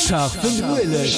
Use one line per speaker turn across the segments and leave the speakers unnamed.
Scharfen Ueleg.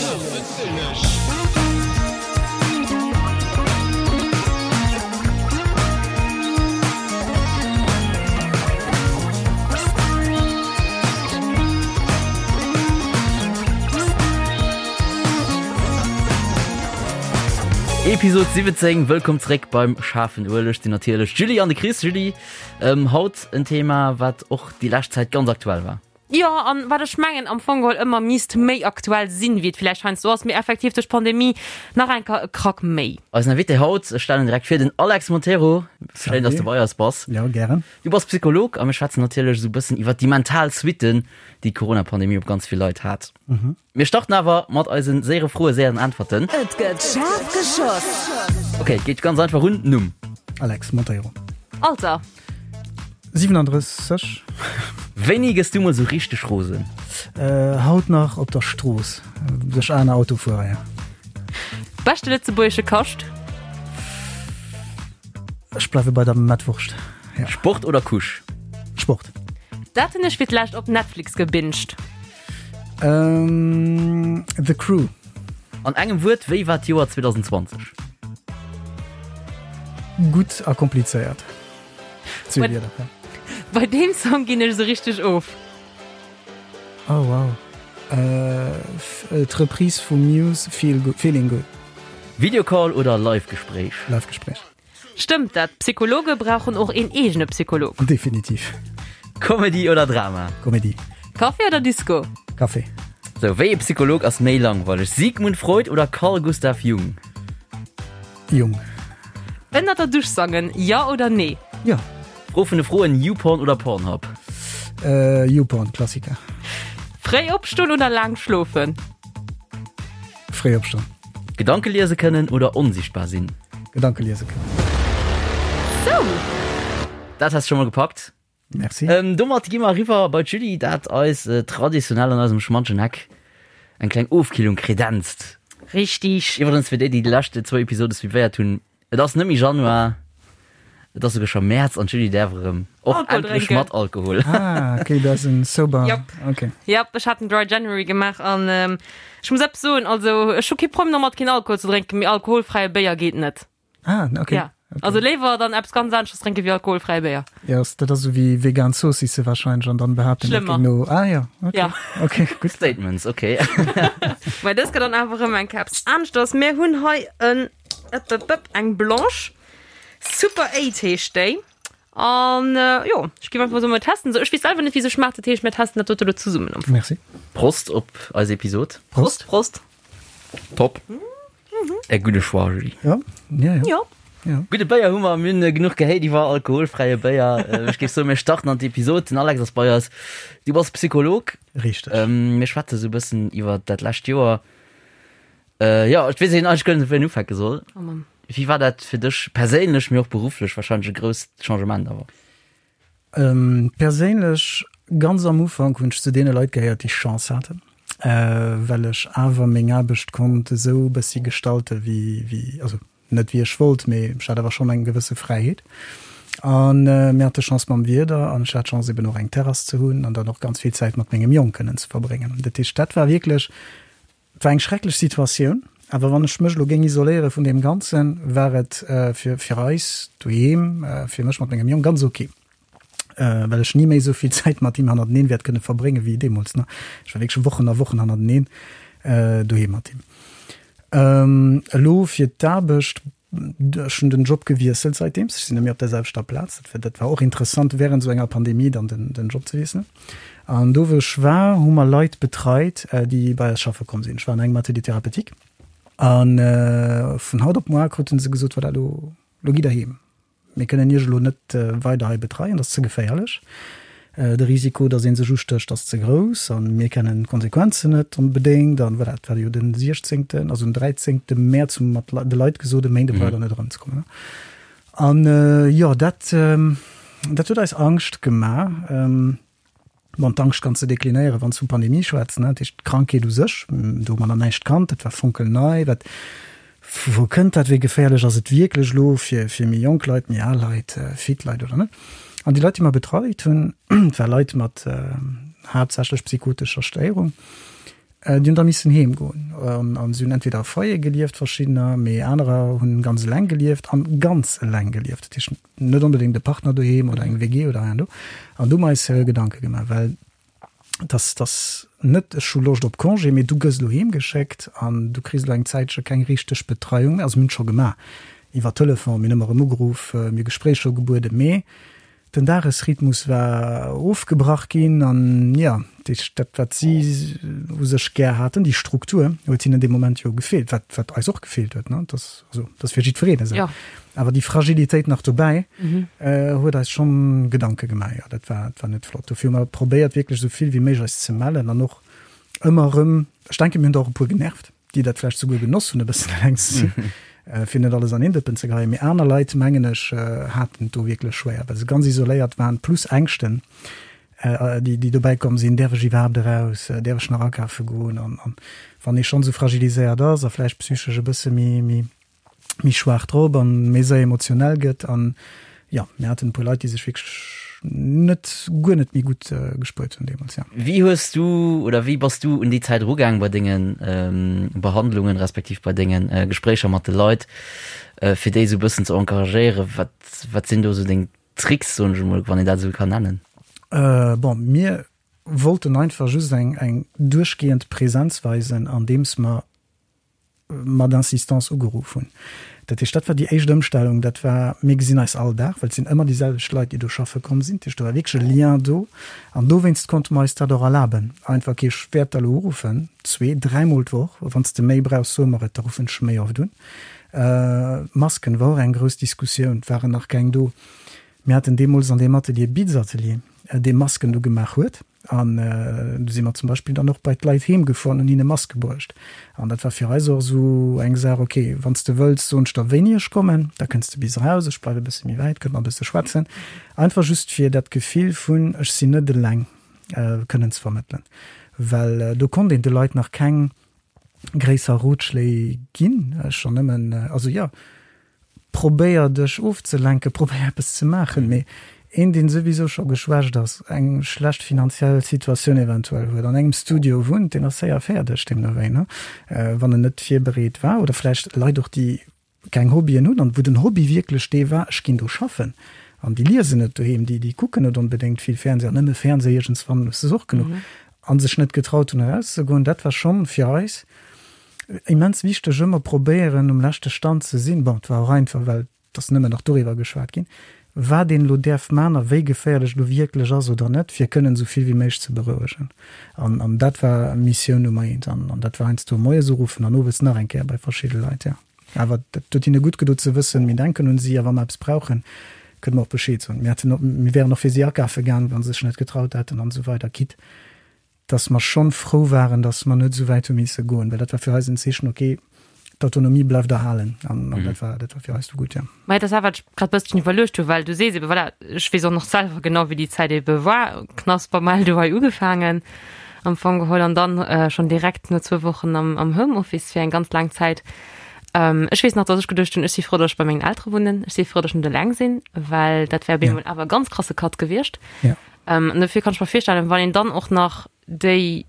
Episode 17, Wëllkomm zréck beim schaarfen Ueleg. Sinn natierlech d'Julie an de Chris. Julie, ähm, haut en Thema, wat och déi lescht Zäit ganz aktuell war.
Jo, an wat ech mengen am Fong geholl ëmmer misst méi aktuell sinn, wéi et villäicht heiansdo ass, mee effektiv duerch d'Pandemie nach eng Kéier e Krack méi.
Eisen Invité haut, ech stellen en direkt vir, den Alex Monteiro. Schéin, dass du bei eis bass.
Jo, gären.
Du bass Psycholog a mir schwätzen natierlech esou e bëssen iwwert déi mental Suitten, déi d'Corona-Pandemie op ganz vill Leit hat. Mir starten awer mat eisen séiere Froe, séieren Äntwerten.
Et gëtt schaarf geschoss.
Ok, et geet ganz einfach un. Numm.
Alex Monteiro.
Alter.
37.
Wéini gëss du mol sou richteg rosen?
Haut nach op der Strooss duerch aner Autofuerer, jo.
Beschte lëtzebuergesche Kascht?
Ech bleiwe bei der Mettwurscht,
jo. Sport oder Couche?
Sport.
Dat hunn ech fir d'lescht op Netflix gebinged.
The Crew.
An engem Wuert, wéi war d'Joer 2020?
Gutt a komplizéiert.
Zwee Wierder, ja. Bei deem Song ginn ech esou richteg of.
Oh wow. D'Reprise vu Muse, Feel Good, Feeling Good.
Videocall oder Live-Gespréich?
Live-Gespréich.
Stëmmt dat, Psychologe brauchen och een eegene Psycholog?
Definitiv.
Comedy oder Drama?
Comedy.
Café oder Disco?
Café.
Sou, wéi ee Psycholog ass méi langweileg, Sigmund Freud oder Carl Gustav Jung?
Jung.
Ënnert der Dusch sangen, jo oder nee?
Jo.
Fro vun de Froen, YouPorn oder Pornhub?
YouPorn, Klassiker.
Fréi opstoen oder laang schlofen?
Fréi opstoen.
Gedanke liese kënnen oder onsichtbar sinn?
Gedanke liese kënnen.
Sou!
Dat has de scho mol gepackt.
Merci.
Domat gi mer eriwwer bei d'Julie, dat eis traditionell an eisem schmantschen Eck eng kleng Ofkillung kredenzt.
Richtig.
Iwwregens fir déi, déi déi lescht zwou Episode suivéiert hunn, Et ass net méi Januar, et ass souguer scho Mäerz an d'Julie däerf erëm och
Alkohol
endlech
drénken.
mat Alkohol.
Ah, okay, dat ass en sober.
Jop.
Okay.
Jop, ech hat den Dry January gemaach an ech muss eppes soen, also ech hu kee Problem domat keen Alkohol ze drénken, mee alkoholfräie Béier geet net.
Ah, okay.
Ja. Also léiwer dann eppes ganz anesches drénke wéi alkoholfräie Béier.
Ja, dat ass esou wéi vegan Zoossisse wahrscheinlech an dann behaapten, dat
Schlëmmer.
géing no. Ah ja, okay.
Ja.
Okay, gutt.
Statements, okay.
Mä dës gëtt dann awer erëm eng Kéier eppes aneschters. Mir hunn hei en Ëpp ëpp ëpp, eng Blanche. Super 8 heescht déi. An jo, ech géif einfach soen, mir testen se. Ech weess selwer net, wéi se schmaacht, dat heescht, mir testen dat dote lo zesummen am Fong.
Merci.
Prost op eis Episod.
Prost.
Prost.
Top. E gudde Choix, Julie.
Ja, ja, ja.
Jo.
Ja.
Gudde Béier hu mer, mir hunn genuch gehéiert iwwer alkoholfräie Béier. Ech géif soen, mir starten an d'Episod. Den Alex ass bei eis. Du bass Psycholog.
Richteg.
Mir schwätze sou e bëssen iwwer dat lescht Joer. Äh, jo, ech weess eigentlech guer net, wou een ufänke soll.
Oh Mann.
Wéi war dat fir dech perséinlech, mee och berufflech wahrscheinlech e grousst Changement awer?
Ähm, perséinlech, ganz am Ufank hunn ech zu deene Leit gehéiert, déi Chance haten, well ech awer meng Aarbecht konnt esou e bëssi gestalte wéi, wéi, also net wéi ech wollt, mee ech hat awer schonn eng gewësse Fräiheet. An mir hate Chance mam Wieder an ech hat Chance eben och eng Terrass ze hunn an dann och ganz vill Zäit mat mengem Jong kënnen ze verbréngen. Dat heescht, dat war wierklech Et war eng schrecklech Situatioun, awer wann ech mech elo géing isoléiere vun deem Ganzen, war et fir fir eis doheem, fir mech mat mengem Jong ganz ok, well ech ni méi esou vill Zäit mat him hannerteneen wäert kënne verbrénge wéi deemools. Ech war wierklech Wochen a Wochen hannerteneen doheem mat him. Elo fir d'Aarbecht, Ech hunn den Job gewiesselt säitdeems. Ech sinn net méi op der selwechter Plaz. Dat war, dat war och interessant, während esou enger Pandemie dann den, den Job ze wiesselen. An do, wou ech war, hu mer Leit betreit, déi bei eis schaffe komm sinn. Ech war an engem Atelier thérapeutique. A vun haut op muar krute se gesot, Voilà, elo, elo gitt Der heem. Mir kënnen Iech elo net weider hei betreien, dat ass ze geféierlech. De Risiko, datt ee sech ustécht, ass ze grouss a mir kennen d'Konsequenzen net onbedéngt. An voilà, et war jo den 16., also den 13. Mäerz hu mer de Leit gesot, e Méinde braucht Der net erëmzekommen. An jo, dat, dat huet eis Angscht gemaach. Bon, d'Angscht kanns de deklinéieren, wann s vu Pandemie schwätz, ne? Dat heescht, d'Krankheet u sech, do hu mer nach näischt kannt, dat war fonkelnei. Wat, vu wou kënnt dat, wéi geféierlech ass et wierklech elo fir, fir méi jonk Leit, méi al Leit, fit Leit oder net? An déi Leit, déi mer betreit hunn, dat ware Leit mat haaptsächlech psychotescher Stéierung. Déi hunn da missen heem goen an si hunn entweder a Foyer gelieft, verschiddener, mee anerer hunn ganz eleng gelieft an ganz eleng gelieft, dat heescht net onbedéngt e Partner doheem oder eng WG oder hei an do. An do hu mer eis seriö Gedanke gemaach, well dass dass net ech hu Loscht op Congé, mee du gëss elo heem geschéckt an du kriss elo eng Zäitche keng richteg Betreiung méi. Also mir hunn et scho gemaach iwwer Telefon, mir hunn ëmmer erëm ugeruff, mir hu Gespréicher ugebueden, mee Den Dagesrhythmus war ofgebrach ginn an, jo, dat, wat si u sech gär haten, déi Struktur, huet hinnen dee Moment jo gefeelt, wat, wat eis och gefeelt huet, ne? Dat, also, dat ass fir jiddwereen esou.
Jo.
Awer déi Fragilitéit nach dobäi huet eis schonn Gedanke gemaach, jo. Dat war, dat war net flott. Dofir hu mer probéiert, wierklech esou vill wéi méiglech eis ze mellen an och ëmmer erëm, ech denken, mir hunn der och e puer genervt. déi dat vläicht souguer genoss hunn, e bëssen eleng ze sinn, fir net alles an een Dëppen ze geheien. Mee aner Leit, mengen ech, haten et do wierklech schwéier, well se ganz isoléiert waren, plus Ängschten, déi, déi dobäi komm sinn, Däerf ech iwwerhaapt eraus? Däerf ech nach akafe goen? An wann ee schonn esou fragiliséiert ass a vläicht psychesch e bësse méi, méi, méi schwaach drop an méi séier emotionell gëtt an jo, mir haten e puer Leit, déi sech wierklech net, guer net méi gutt gespuert hunn deemools, jo.
Wéi hues du oder wéi bass du un déi Zäit erugaang bei denge Behandlungen, respektiv bei denge Gespréicher mat de Leit, fir déi esou e bëssen ze encouragéieren? Wat, wat sinn do esou deng Tricks, soen ech emol, wann een dat esou kann nennen?
Bon, mir wollten einfach just eng, eng duerchgehend Präsenz weisen, andeems mer mat Insistance ugeruff hunn. Dat heescht, dat war déi éischt Ëmstellung, dat war, mir gesinn eis all Dag, well et sinn ëmmer déi selwecht Leit, déi do schaffe komm sinn. Dat heescht, do war wierklech e Lien do an dowéinst konnte mer eis dat och erlaben, einfach, okay, ech wäert der elo uruffen, zwee-, dräimol d'Woch, wann s de méi brauchs, soe mer et, da ruffen ech méi oft un. Masken war och eng grouss Diskussioun, et waren nach keng do. Mir haten deemools an deem Atelier e Beads-Atelier, dee Masken du gemaach huet. An du si mer zum Beispill dann och bei d'Leit heem gefuer an hunn hinne Maske bruecht. An dat war fir eis och esou eng Saach, ok, wann s de wëlls, soen ech der, wéini ech kommen, da kënns de bis eraus, ech bleiwe e bësse méi wäit, kënne mer e bësse schwätzen. Einfach just fir dat Gefill vun ech sinn net eleng kënnen ze vermëttelen. Well do konnt een de Leit nach keng gréisser Rotschléi ginn, schonn nëmmen, also jo, Probéier dech ofzelenken, probéier eppes ze maachen, mee een deen souwisou scho geschwächt ass, eng schlecht finanziell Situatioun eventuell huet, an engem Studio wunnt, deen ass séier fäerdeg deemno wéi, ne, wann en net virbereet war. Oder vläicht Leit och déi keng Hobbyen hunn an wou den Hobby wierklech dee war, ech ginn do schaffen an déi liesen net doheem, déi déi kucken net onbedéngt vill Fernseh an nëmme Fernseh iergendswann hues de se och genuch, a sech net getraut hunn erauszegoen. Dat war schonn fir eis Immens wichteg, ëmmer probéieren um leschte Stand ze sinn. Bon, et war och einfach, well et ass nëmmen nach doriwwer geschwat ginn, wat een elo däerf man a wéi geféierlech elo wierklech ass oder net, fir kënnen esou vill wéi méiglech ze berouegen. An, an dat war Missioun Nummer eent. An, an dat war heiansdo moies uruffen an owes nach eng Kéier bei verschidde Leit, jo. Awer dat huet hinne gutt gedo ze wëssen, mir denken un si a wa mer eppes brauchen, kënne mer och Bescheed soen. Mir hätten och, mir wären och fir si akafe gaang, wa se sech net getraut hätten an esou weider, quitte dass mer schonn frou waren, dass mer net esou wäit hu misse goen, well dat war fir eis en Zeechen, okay, d'Autonomie bleift erhalen an dat war, dat war fir eis du gutt, jo.
Mä et ass awer, wat ech grad bësschen iwwerluecht hu, well du sees ebe, voilà, ech weess och nach selwer genau, wéi déi Zäit ebe war, Knaspermell du hei ugefaangen am Fong geholl an dann schonn direkt no zwou Wochen am, am Homeoffice fir eng ganz laang Zäit. Ech weess nach, dass ech geduecht hunn, ech si frou, dass ech bei mengen Eltere wunnen, ech si frou, dass ech net eleng sinn, well dat wär op eemol awer e ganz krasse Cut gewiescht. Ähm, an dofir kann ech mer virstellen, wann een dann och nach déi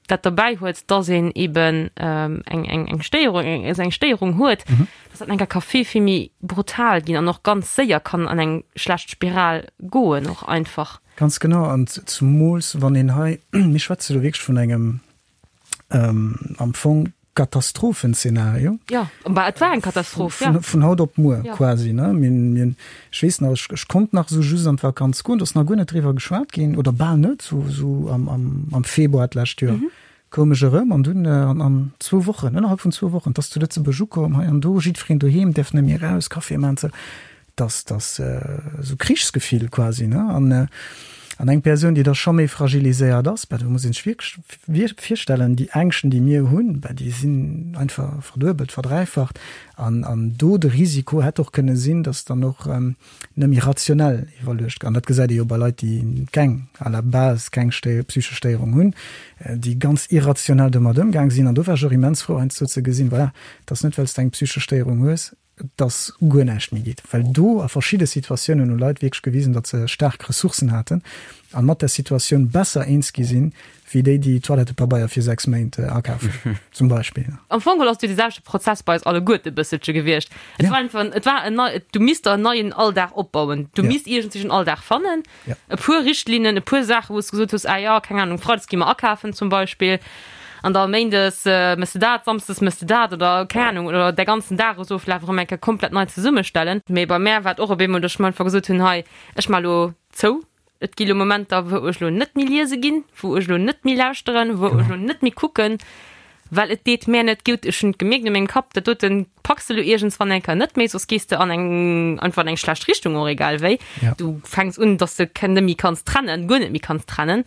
dat derbäi huet, dass een eben ähm, eng, eng, eng Stéierung, eng, also eng Stéierung huet, mhm. dass dat enker ka vill, vill méi brutal ginn an och ganz séier kann an eng schlecht Spiral goen och einfach.
Ganz genau an zumools wann een hei, mir schwätze do wierklech vun engem am Fong Katastrophenszenario.
Ja, bah, et war eng Katastroph,
ja. Vun haut op muer ja. quasi. Ne? Mir, mir, ech weess nach, ech, ech konnt nach sou just an d'Vakanz goen, do ass nach guer net driwwer geschwat ginn, oder bal net, sou, sou am, am, am Februar d'lescht Joer. Mhm. Koum ech erëm an dunn an, an zwou Wochen, ënnerhalb vun zwou Wochen, 't ass zu Lëtzebuerg ukomm, hei an do, jiddwereen doheem, däerf net méi eraus, Café maachen, sou. Dass dass esou Krichsgefill quasi, ne? An an eng Persoun, déi da scho méi fragiliséiert ass, bah do muss een sech wierklech virstellen, déi Ängschten, déi mir hunn, bah déi sinn einfach verduebelt, verdräifacht. An an do de Risiko hätt och kënne sinn, dass dann och net méi rationell iwwerluecht gëtt. An dat gesäit ee jo bei Leit, déi keng, à la base keng psychesch Stéierung hunn, déi ganz irrationell domat ëmgaang sinn. An do war ech och immens frou heiansdo ze gesinn, voilà, dass net well s de eng psychesch Stéierung hues, dass guer näischt méi geet, well do a verschidde Situatiounen hu Leit wierklech gewisen, datt se staark Ressourcen haten. an mat der Situatioun besser eens gi sinn, wéi déi, déi Toilettepabeier fir 6 Méint akafen, zum Beispill.
Am Fong geholl ass jo dee selwechte Prozess bei eis alleguerte e bësselche gewiescht. Et war einfach, et war en nei, du misst der en neien Alldag opbauen. Du misst iergendswéi en Alldag fannen, e puer Richtlinnen, e puer Saachen, wou s du gesot hues, ah jo, keng Ahnung, freides gi mer akafen zum Beispill an da méindes méchs de dat, samsdes méchs de dat oder keng Ahnung, oder däi ganzen Dagesoflaf erëm eng Kéier komplett nei zesummestellen. Mee bei mär war et och op eemol, datt ech mer einfach gesot hunn, hei, ech maa lo zou. Et gi lo Momenter, wou ech lo net méi liese ginn, wou ech lo net méi lauschteren, wou ech lo net méi kucken, well et deet mär net gutt. Ech hunn et gemierkt u mengem Kapp, dat dote packs de lo iergendswann eng Kéier net méi, soss gees de an eng, einfach an eng schlecht Richtung och, egal wéi. Du fänks un, dass de net méi kanns trennen, guer net méi kanns trennen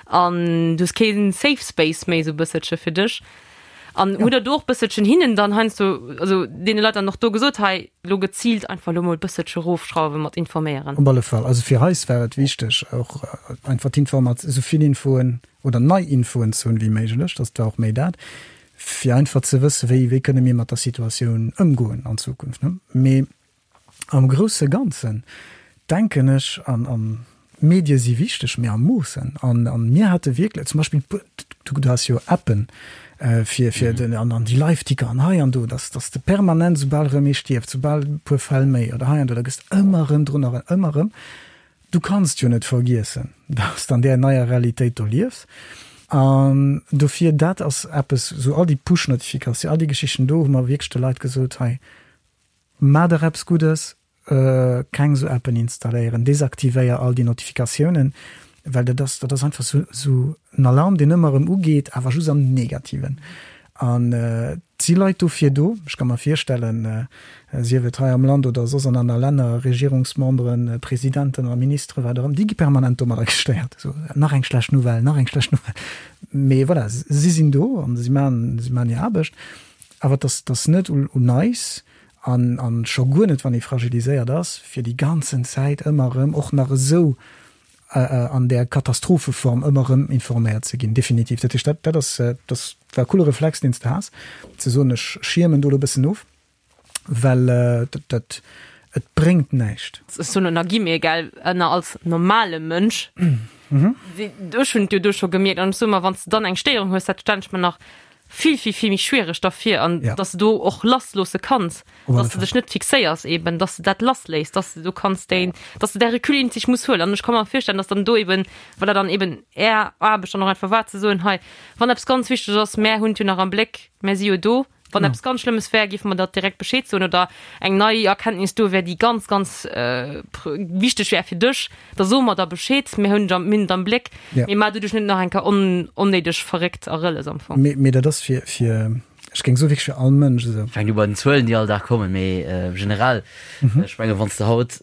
an du hues kee Safe Space méi esou e bësselche fir dech. An hutt Der do och bësselchen hinnen dann heiansdo, also deene Leit dann och do gesot, hei lo geziilt einfach lo mol bësselche rofschrauwe mat informéieren?
Op alle Fall. Also fir eis war et wichteg och einfach d'Informat-, esou vill Infoen oder nei Infoen ze hunn wéi méiglech, dat war och méi dat, fir einfach ze wësse wéi, wéi kënne mir mat der Situatioun ëmgoen an Zukunft, ne. Mee Am grousse Ganzen denken ech, an an d'Medie si wichteg, mee a Moossen. An an mir hate wierklech zum Beispill, du has jo Appen fir fir den an an déi Liveticker an hei an do, dass dass de permanent, soubal erëm ee stierft, soubal e puer Fäll méi oder hei an do, da gëss de ëmmer erëm drun erënnert, ëmmer erëm. Du kanns jo net vergiessen, dass de an där neier Realitéit do liefs. An dofir, dat ass eppes, esou all déi Push-Notifikatioun, all déi Geschichten do, hu mer wierklech de Leit gesot, hei, Maach der eppes Guddes, keng sou Appen installéieren, desaktivéier all déi Notifikatiounen, well dat ass, dat ass einfach sou, sou en Alarm, deen ëmmer erëm ugeet, awer just am Negativen. An et si Leit dofir do, ech ka mer virstellen, sief et hei am Land oder soss an aner Länner, Regierungsmemberen, Presidenten a Ministeren, wat och ëmmer, déi gi permanent domadder gestéiert, sou nach eng schlecht Nouvelle, nach eng schlecht Nouvelle. Mee voilà, si sinn do an si maachen, si maachen hir Aarbecht. Awer et ass, et ass net un eis, an, an scho guer net, wann ee fragiliséiert ass, fir déi ganzen Zäit ëmmer erëm och nach esou an där Katastropheform ëmmer erëm informéiert ze ginn. Definitiv. Dat heescht, dat, dat ass, dat ass, war e coole Reflex, deen s de has, ze soen, ech schiermen do elo e bëssen of, well dat, dat, et bréngt näischt.
Ech soen elo gi mir egal, ënner als normale Mënsch, ech hunn et jo do scho gemierkt, an ech soe mer, wann s de dann eng Stéierung hues, dat stellen ech mer nach vill, vill, vill méi schwiereg da vir an ja. dass du do och lassloosse kanns, dass du dech net fixéiers eben, dass du dat lassléiss, dass du do kanns déin, dass du däi Recul in sich muss huelen. An ech ka mer virstellen, dass dann do eben, well der dann eben Är Aarbecht dann och einfach war ze soen, hei, wann eppes ganz wichteg ass, mär hunn d'jo nach am Bléck, mär si jo do, wann eppes ganz Schlëmmes wär, géife mer der direkt Bescheed soen oder eng nei Erkenntnis do wär, déi ganz, ganz wichteg wär fir dech, Da soe mer der Bescheed, mir hunn et am, am Bléck, ja. Mee mar du dech net nach eng Kéier on, onnéideg verréckt a rëlles am
Fong. Mee, mee dat ass fir, fir, ech géing soe wierklech fir all Mënsch esou.
Fänkt u bei den Zuelen, déi all Dag kommen, mee generell, mhm. ech menge wann s de haut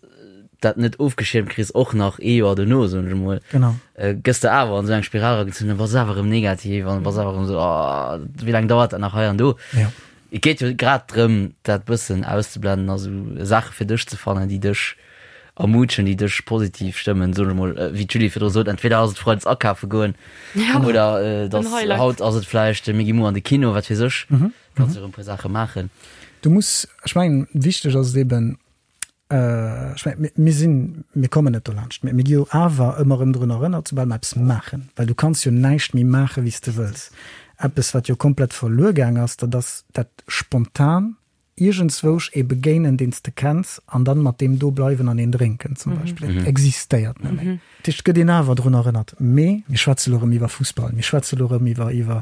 dat net ofgeschiermt kriss, och nach ee Joer dono, soen ech emol,
genau.
gëss de awer an esou eng Spiral eragezunn, da bass awer erëm negativ an bass awer erëm esou, oh, wéi laang dauert dat nach hei an do.
Ja.
Et geet jo grad drëm, dat bëssen auszeblenden a sou Saache fir dech ze fannen, déi dech ermutegen, déi dech positiv stëmmen, soen ech mol, wéi d'Julie virdru sot, entweder ass et freides akafe goen oder et ass, haut ass et vläicht, mir gi muer an de Kino, wat weess ech, kanns jo erëm e puer Saache maachen.
Du muss, ech mengen, wichteg ass et eben, Ech mengen, mir sinn, mir kommen net dolaanscht, mä mir gi jo awer ëmmer erëm drun erënnert, soubal mer eppes maachen, well du kanns jo näischt méi maachen, wéi s de wëlls. Eppes, wat jo komplett verluer gaang ass, dat ass dat spontan iergendzwousch ee begéinen, deen s de kenns, an dann mat deem do bleiwen an een drénken zum Beispill. Dat existéiert net méi. Dat heescht, et gëtt een awer drun erënnert. Mee mir schwätze elo erëm iwwer Fussball, mir schwätze elo erëm iwwer, iwwer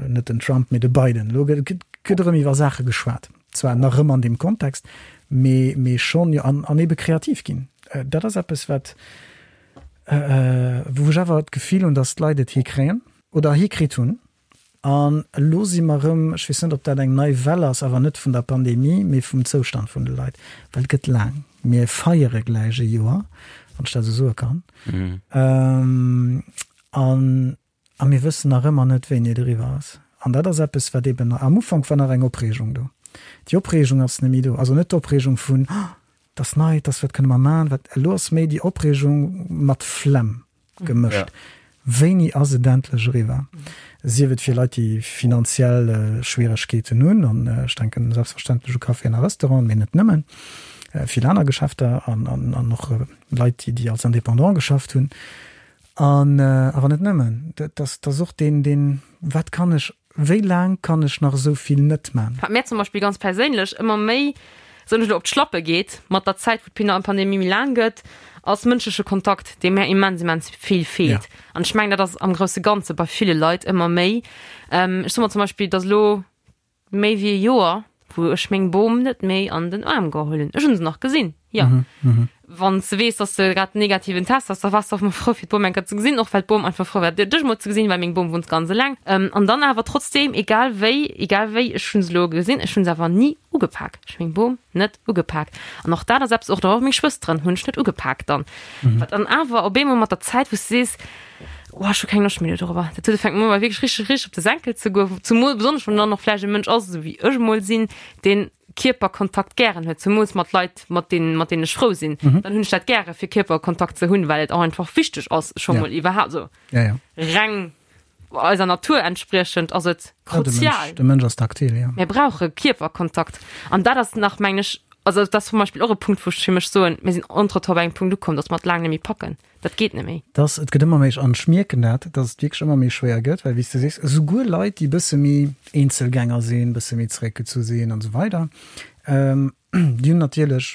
net den Trump, mee de Biden. Elo gëtt erëm iwwer Saache geschwat. Zwar nach ëmmer an deem Kontext, mee, mee schonn, jo, an, an ebe kreativ ginn. Dat ass eppes, wat, wou ech awer d'Gefill hunn, datt d'Leit et hikréien oder hikritt hunn. An elo si mer erëm, ech weess net, ob dat eng nei Well ass, awer net vun der Pandemie, mee vum Zoustand vun de Leit, well et gëtt laang. Mir feiere gläich e Joer, wann ech dat esou soe kann. An A mir wëssen nach ëmmer net, wéini et eriwwer ass. An dat ass eppes, wat eben, am Ufank war nach eng Opreegung do. Déi Opreegung ass net méi do. Also net d'Opreegung vun, Oh, dat ass nei, dat ass, wat kënne mer maachen, wat. Elo ass méi déi Opreegung mat Flemm gemëscht. Wéini ass et endlech eriwwer? Sief et fir Leit, déi finanziell Schwieregkeeten hunn, an ech denken selbstverständlech u Caféen a Restauranten, mee net nëmmen. vill aner Geschäfter an, an, an och Leit, déi, déi als Indépendant geschafft hunn. An awer net nëmmen. Dat ass, dat ass och deen, deen, wat kann ech, wéi laang kann ech nach esou vill net man?
Wat mär zum Beispill ganz perséinlech ëmmer méi, soen ech elo, op d'Schlappe geet mat der Zäit, wou d'Pandemie méi laang gëtt, ass mënschleche Kontakt, dee mär immens, immens vill feelt. An ech mengen, dat ass am grousse Ganze bei ville Leit ëmmer méi. Ech soe mer zum Beispill, datt elo Méi wéi e Joer, wou ech meng Bom net méi an den Aarm geholl hunn. Ech hunn se nach gesinn, jo. Wann s de weess, dass de grad en negativen Test has, da waars de och mol frou, fir d'Bom eng Kéier ze gesinn, och well d'Bom einfach frou war, dech mol ze gesinn, well meng Bom wunnt ganz eleng. An dann awer trotzdeem, egal wéi, egal wéi, ech hunn se elo gesinn, ech hunn se awer ni ugepak. Ech hunn meng Bom net ugepak. An och dat ass eppes, och och meng Schwësteren hunn ech net ugepak dann. Wat dann awer op eemol mat der Zäit, wou s de sees, Oh, ech hu keng Loscht méi dorobber. Dat huet fänkt mol wierklech richteg richteg op de Senkel ze goen, zumol besonnesch wann dann och vläicht e Mënsch ass, esou wéi ech emol sinn, deen Kierperkontakt gären huet, zemools mat Leit, mat deenen mat deenen ech frou sinn. Dann hunn ech dat gäre fir Kierperkontakt ze hunn, well et och einfach wichteg ass scho mol iwwerhaapt, also reng eiser Natur entspriechend ass et kruzial.
De Mënsch ass taktil, jo.
Mir brauche Kierperkontakt an dat ass nach, mengen ech, also dat ass zum Beispill och e Punkt, wou ech fir mech soen, mir sinn entretemps bei engem Punkt ukomm, datt mer et laang net méi packen. Dat geet net méi.
Dass, et gëtt ëmmer méi, an ech mierken dat, dass et wierklech ëmmer méi schwéier gëtt, well wéi s de sees, esouguer Leit, déi e bësse méi Eenzelgänger sinn, e bësse méi zeréckgezu sinn an esou weider, déi hunn natierlech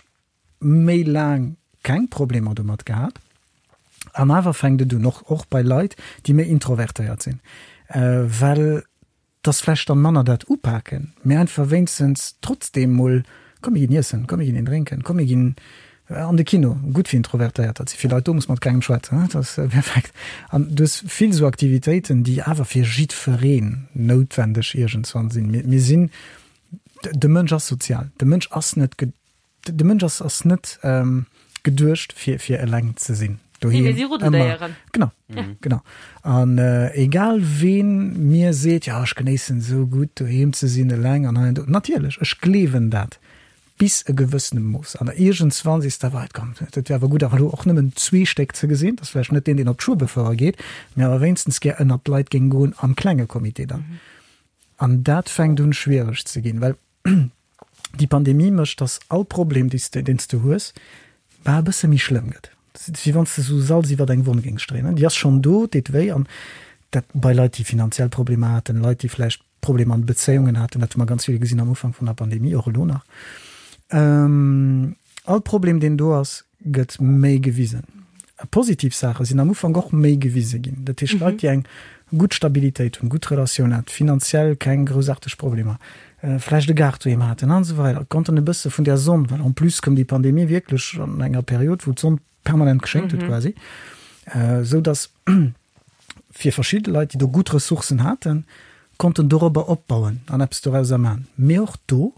méi laang keng Problemer domat gehat. An awer fänkt et un, och, och bei Leit, déi méi introvertéiert sinn, well dass vläicht dann manner dat upaken, mee einfach wéinstens trotzdem mol, komm mir ginn iessen, komm mir ginn een drénken, komm mir ginn an de Kino, gutt fir Introvertéierter, et si vill Leit do, muss mat kengem schwätzen, dat ass perfekt. An du hues vill esou Aktivitéiten, déi awer fir jiddwereen noutwendeg iergendswann sinn. Mir sinn, de Mënsch ass sozial, de Mënsch ass net De Mënsch ass, ass net geduecht fir, fir eleng ze sinn.
Doheem. Nee, mir si Ruddeldéieren.
Genau, ja. genau. An äh, egal ween mir seet, ja, ech genéissen esou gutt doheem ze sinn, eleng an hei an do. Natierlech, ech gleewen dat. Bis e gewëssene Mooss. An iergendswann sees de awer, komm, dat wär awer gutt, awer elo och nëmmen zwee Stéck ze gesinn. Dat ass vläicht net deen, deen op d'Schueberfouer geet, mee awer wéinstens gär ënnert d'Leit géing goen am klenge Comité dann. An dat fänkt un schwiereg ze ginn, well Déi Pandemie mécht, dass all Problem, déi s de, deen s de hues, bal e bësse méi schlëmm gëtt. Et ass wéi wann s de sou Salz iwwert eng Wonn géings stréien. Déi ass schonn do, et deet wéi. An dat bei Leit, déi finanziell Problemer haten, Leit, déi vläicht Problemer an de Bezéiungen haten, dat hu mer ganz vill gesinn am Ufank vun der Pandemie, och elo nach. All Problem, deen do ass, gëtt méi gewisen. Positiv Saache sinn am Ufank och méi gewise ginn. Dat heescht, Leit, déi eng gutt Stabilitéit hunn, gutt Relatioun haten, finanziell keng groussaarteg Problemer, vläicht e Gaart doheem haten an esou weider, konnten e bësse vun där Sonn, well en plus koum déi Pandemie wierklech an enger Period, wou d'Sonn permanent geschéngt huet quasi, esou datt fir verschidde Leit, déi do gutt Ressourcen haten, konnten dorobber opbauen an eppes dorauser maachen. Mee och do.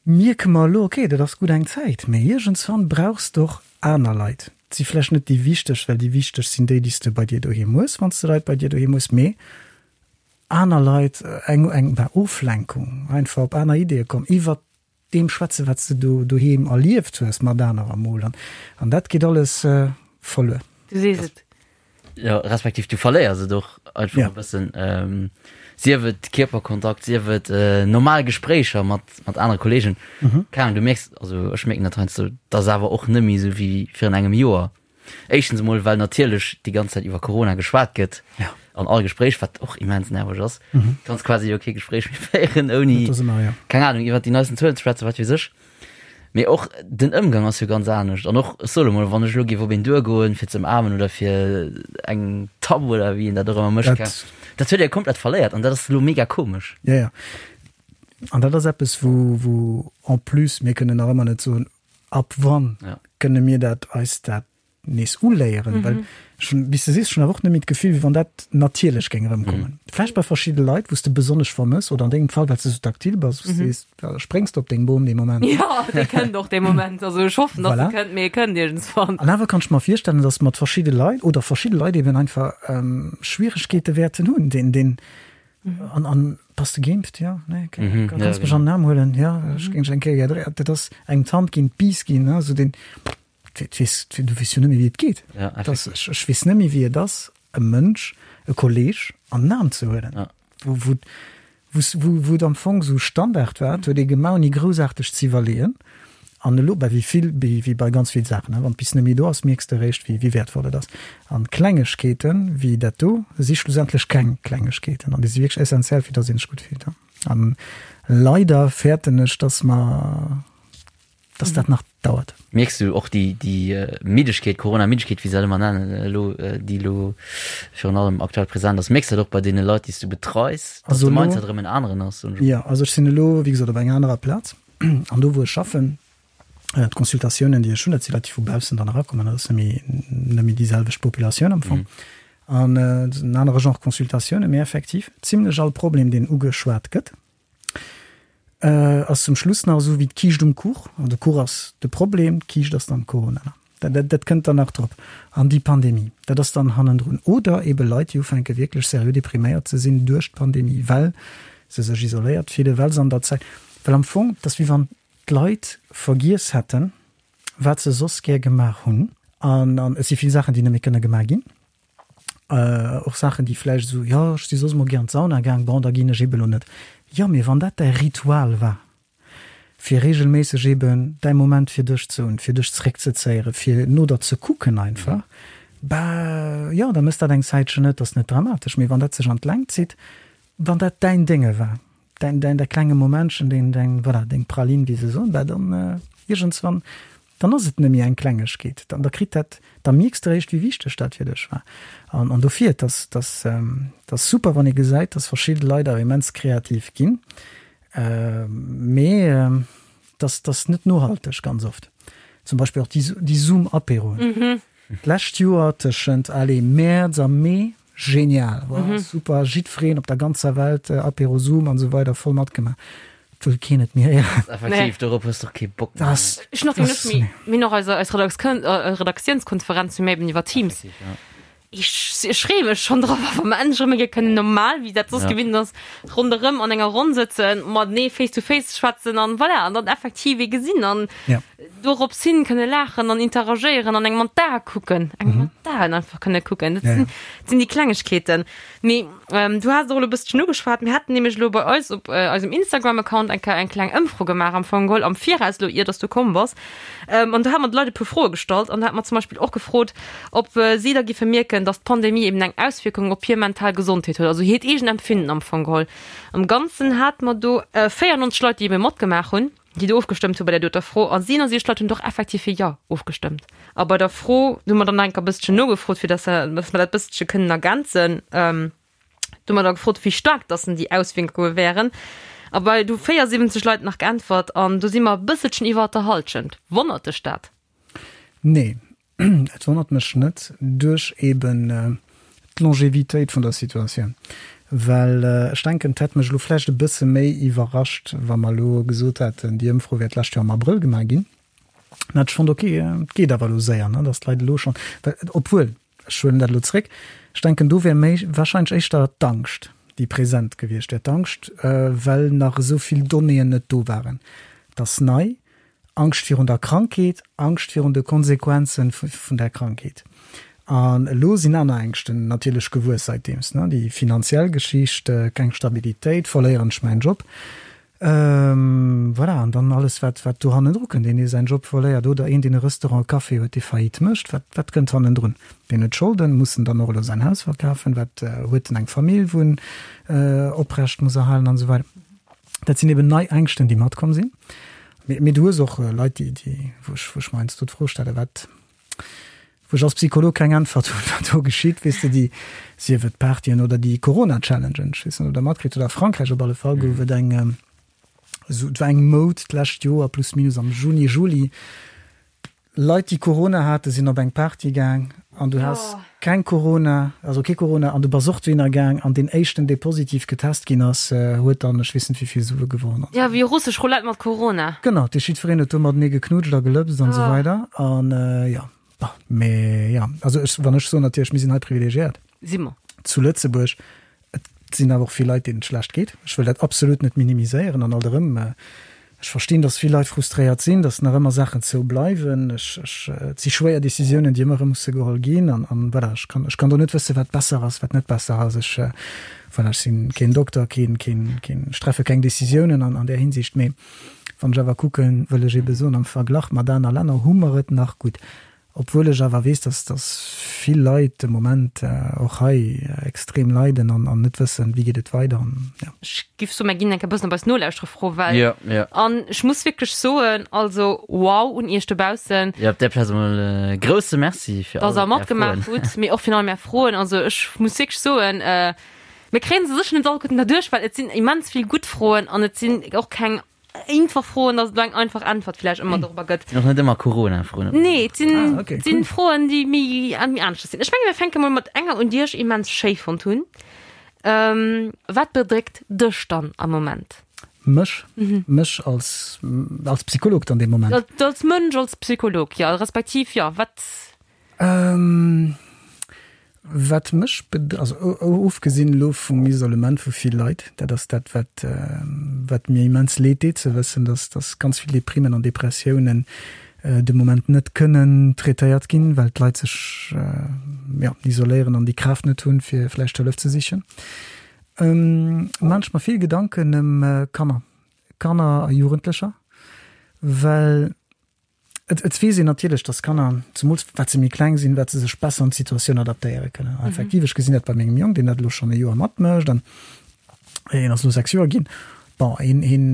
Mierke mer elo, ok, dat ass gutt eng Zäit, mee iergendswann brauchs de och aner Leit. Et si vläicht net déi wichteg, well déi wichteg sinn déi, déi s de bei dir doheem hues, wann s de Leit bei dir doheem hues, mee aner Leit, eng, eng bah, Oflenkung, einfach op aner Ideeë kommen, iwwert deem schwätzen, wat s de do doheem erlieft hues mat anerer mol. An, an dat geet alles verluer.
Du sees et.
Jo, respektiv du verléiers et och einfach e bëssen. Ähm, sief et Kierperkontakt, sief et äh, normal Gespréicher mat, mat anere Kollegen. Mhm. Keine Ahnung, du mierks, also ech mierken dat heiansdo, dat ass awer och net méi esou wéi virun engem Joer. Éischtens emol, well natierlech déi ganz Zäit iwwer Corona geschwat gëtt.
Ja.
An all Gespréich, wat och immens nerveg ass. Mhm. Kanns quasi jo kee Gespréich méi féieren, ouni,
Dat ass ëmmer, ja.
keng Ahnung, iwwer déi neisten Zuelen ze schwätzen, wat weess ech. Mee och den Ëmgang ass jo ganz anescht. An och, ech soe lo mol, wann ech elo géif op een duergoen, fir ze ëmaarmen oder fir eng Tapp oder wéi een dat och ëmmer mécht,
Dat.
dat huet ee jo komplett verléiert an dat ass elo mega komesch.
Jo, jo. An dat ass eppes, wou, wou en plus, mir kënnen nach ëmmer net soen, ab wann kënne mir dat eis dat nees uléieren, well ech hunn, wéi s de sees, ech hunn awer och net méi d'Gefill, wéi wann dat natierlech géing erëmkommen. Vläicht bei verschidde Leit, wou s de besonnesch vermëss, oder an dengem Fall, well s de sou taktil bass, wou s de sees, da spréngs de op deng Bom dee Moment.
Jo, dee kënnt och dee Moment. Also ech hoffen, datt e
Voilà.
kënnt, mee e kënnt iergendswann.
An awer kann ech mer virstellen, datt mat verschidde Leit oder verschidde Leit eben einfach Schwieregkeete wäerten hunn, deen, deen, an, an, bass de geimpft? Jo? Nee? Okay. Kanns mech an den Aarm huelen? Jo, ech géing dech eng Kéier gär dréien. Dat ass engem d'Hand ginn, d'Biiss ginn, ne, sou deen. Du weess jo net méi wéi et geet.
Ja,
das, ech, ech weess net méi wéi et ass, e Mënsch, e Kolleg an den Aarm ze huelen.
Ja.
Wou, wou, wou, wou et am Fong sou Standard war, huet ee gemaach ouni groussaarteg ze iwwerleeën. An elo, bah, wéi vill, wéi, wéi bei ganz vill Saachen, wann d'Biss net méi do ass, mierks de eréischt, wéi, wéi wäertvoll et ass. An Klengegkeeten, wéi dat do, si schlussendlech keng Klengegkeeten an déi si wierklech essentiell, fir dass ee sech gutt fillt. An leider fäerten ech, dass mer, dass dat nach dauert.
Mierks du och déi, déi Middegkeet, Corona-Middegkeet, wéi se dat ëmmer nennen elo, déi elo virun allem aktuell present ass, mierks du dat och bei deene Leit, déi s du betreis, dass de Mindset erëm en aneren ass?
Jo, also ech sinn elo, wéi gesot, op enger anerer Plaz. An do wou ech schaffen, d'Consultatiounen déi ech hunn, dat si Leit déi vu baussen dann erakommen, dat ass net méi, net méi déi selwecht Populatioun am Fong. An et en anere Genre Consultatiounen, mee effektiv zimlech all Problem deen ugeschwat gëtt, ass zum Schluss nach esou wéi d'Kiischt um Kuch. An de Kuch ass de Problem, d'Kiischt ass dann Corona. Dat, dat, dat kënnt dann nach drop. An déi Pandemie, dat ass dann hannendrun. Oder ebe Leit, déi ufänke wierklech seriö depriméiert ze sinn duerch d'Pandemie, well se sech isoléiert fillen, well se an der Zäit, well am Fong, et ass wéi wann d'Leit vergiess hätten, wat se soss gär gemaach hunn. An, an et si vill Saachen, déi net méi kënne gemaach ginn. Och Saachen, déi vläicht esou, jo, ech si soss emol gär an d'Sauna gaang, bon, da ginn ech ebe lo net. Jo, mee wann dat däi Ritual war, fir regelméisseg eben däi Moment fir dech ze hunn, fir dech zeréckzezéieren, fir no der ze kucken einfach, bah jo, da mëss dat eng Zäitchen net, ass net dramatesch, mee wann dat sech an d'Längt zitt, wann dat däin Dénge war, däin, däin, däi klenge Momentchen, deen, däin, voilà, deng Praline, wéi se soen, bah dann iergendswann, dann ass et net méi eng Klengegkeet, dann da kritt dat, da mierks de eréischt, wéi wichteg dat fir dech war. An, an dofir, et ass, et ass, et ass super, wann ee gesäit, dass verschidde Leit awer immens kreativ ginn, Mee dass dass net nohalteg ganz oft. Zum Beispill och déi Zoom-Apéroen. D'lescht Joer tëschent, allez, Mäerz a Mee, genial, war super, jiddwereen op der ganzer Welt, Apéro Zoom an esou weider, voll matgemaach. Et wëll keen et méi héieren.
Effektiv, dorop hues de och kee Bock
méi.
Ech nach net méi. Mir hunn och eis Redaktiounskonferenz hu mir eben iwwer Teams. Ech, ech freeë mech schonn drop, wa mer endlech erëm eng Kéier kënnen normal, wéi dat soss ja. gewinnt ass, ronderëm an enger Ronn sëtzen, matenee face to face schwätzen an voilà, an dann effektiv ee gesinn an ja. dorops hin kënne laachen an interagéieren an engem an d'Ae kucken, engem mhm. an d'Aen einfach kënne kucken. Dat ja, sinn, ja. sinn déi Klengegkeeten. Mee ähm, du hast och elo bësschen ugeschwat, mir haten nämlech elo bei eis op äh, eisem Instagram-Account eng, eng kleng Ëmfro gemaach am Fong geholl, am Viraus elo, ier dass du komm bass. Ähm, an do hat mer de Leit e puer Froe gestallt an do hat mer zum Beispill och gefrot, ob äh, si da giffe mierken, dass d'Pandemie eben eng Auswierkung op hir mental Gesondheet huet, also hiert eegent Empfinden am Fong geholl. Am Ganzen hat mer do äh, 94 Leit, déi ebe matgemaach hunn, déi do ofgestëmmt hu bei där doter Fro a 67 Leit hunn doch effektiv fir Jo ofgestëmmt. A bei der Fro, do hu mer dann nach eng Kéier e bësselchen nogefrot, fir dass, dass mer dat bësselche kënnen ergänzen. Ähm, do hu mer da gefrot, wéi staark dass denn déi Auswierkunge wären. A bei do 74 Leit nach geäntwert an do si mer e bësselchen iwwert der Hallschent. Wonnert dech dat?
Nee, Et wonnert mech net, duerch eben d'Longévitéit vun der Situatioun, well ech denken, et hätt mech elo vläicht e bësse méi iwwerrascht, wa mer elo gesot hätten, déi Ëmfro wär d'lescht Joer am Abrëll gemaach ginn. Dann hätt ech fonnt, okay, et geet awer elo séier, ne, datt d'Leit elo schonn, well, obwuel, ech huelen dat elo zréck, ech denken, do wär méi wahrscheinlech éischter d'Angscht, déi present gewiescht wär, d'Angscht, well nach esou vill Donnéeën net do waren. Et ass nei, Angscht virun der Krankheet, Angscht virun de Konsequenzen vun der Krankheet. An elo sinn aner Ängschten natierlech gewuess säitdeems, ne, déi finanziell Geschicht, keng Stabilitéit, verléieren ech mäin Job, voilà, an dann alles wat wat do hannendru kënnt, een dee säin Job verléiert oder een deen e Restaurant, e Café huet, dee Faillite mécht, wat wat kënnt hannendrun? Deen huet Scholden, muss en dann och elo säin Haus verkafen, wat huet en eng Famill wou en oprecht muss erhalen an esou weider. Dat sinn eben nei Ängschten, déi matkomm sinn. Mee du hues och Leit, déi, déi, wou ech, wou ech mer heiansdo d'Fro stellen, wat, wou ech als Psycholog keng Äntwert hunn, wat do geschitt, weess de, déi, sief et Partyen oder déi Corona-Challengen, ech weess net, ob Der matkritt hutt, a Frankräich op alle Fall gouf et eng, esou, et war eng Moud d'lescht Joer, plus minus am Juni, Juli, Leit déi Corona haten sinn op eng Party gaang an du has keng Corona, also kee Corona an du bass och dohinner gaang an deen éischten dee positiv getest ginn ass huet dann ech weess net wéivill Sue gewonnen.
Jo wéi russesch Roulette mat Corona.
Genau, dee jiddwereen huet do matenee geknutscht a gelëpst an esou weider an jo bon mee jo also ech wann ech soen natierlech mir sinn hei privilegiéiert
Si mer.
zu Lëtzebuerg. Et sinn awer och vill Leit, deenen et schlecht geet. Ech wëll dat absolut net minimiséieren an alt erëm. Ech verstinn, dass vill Leit frustréiert sinn, dass nach ëmmer Saachen zou bleiwen. Ech, ech, et si schwéier Decisiounen, déi ëmmer erëm musse geholl ginn. An, an voilà, ech kann, ech kann do net wëssen, wat besser ass, wat net besser ass. Ech, voilà, ech sinn keen Dokter, keen, keen, keen, ech treffe keng Decisiounen an, an där Hinsicht. Mee wann ech awer kucken, wëll ech ebe soen, am Verglach mat aner Länner hu mer et nach gutt. Obwuel ech awer weess, dass dass vill Leit de Moment och hei extrem leiden an an net wëssen, wéi geet et weider an
jo. Ech giff soen, mer ginn enk e bëssen op eis Nolauschtererfro, well Ja, ja. an ech muss wierklech soen, also wow un iech dobaussen,
Ja, op där Plaz emol e grousse Merci fir
dass all der är matgemaach Froen. hutt, mee och fir all mär Froen. Also ech muss wierklech soen, mir kréien se sécher net alleguerten derduerch, well et sinn immens vill gutt Froen an et sinn och keng Einfach Froen, dass et elo eng einfach Äntwert vläicht ëmmer dorobber gëtt.
Sinn och net ëmmer Corona-Froen.
Nee, et sinn, ah, okay, cool. sinn Froen, déi méi, méi aneschters sinn. Ech menge mir fänke mol mat enger un, déi ech immens schéi fonnt hunn. Ähm, wat bedréckt dech dann am Moment?
Mech? Mhm. Mech als, als Psycholog dann dee Moment?
Als, als Mënsch, als Psycholog, ja, respektiv, ja, wat.
Ähm, wat mech, also ofgesinn elo vum Isolement vu vill Leit, dat ass dat, wat, wat mir immens leed deet ze wëssen, dass, dass ganz vill Deprimen an Depressiounen de Moment net kënnen traitéiert ginn, well d'Leit sech, jo, isoléieren an déi Kraaft net hunn, fir vläicht Hëllef ze sichen. Maan ech mer vill Gedanken ëm Kanner, Kanner a Jugendlecher, well Et, et weess een natierlech, dass Kanner, zemools wat se méi kleng sinn, wat se sech besser an d'Situatioun adaptéiere kënnen. An effektiv, ech gesinn dat bei mengem Jong, deen dat elo schonn e Joer matmécht an hien ass elo 6 Joer ginn. Bon, hien, hien,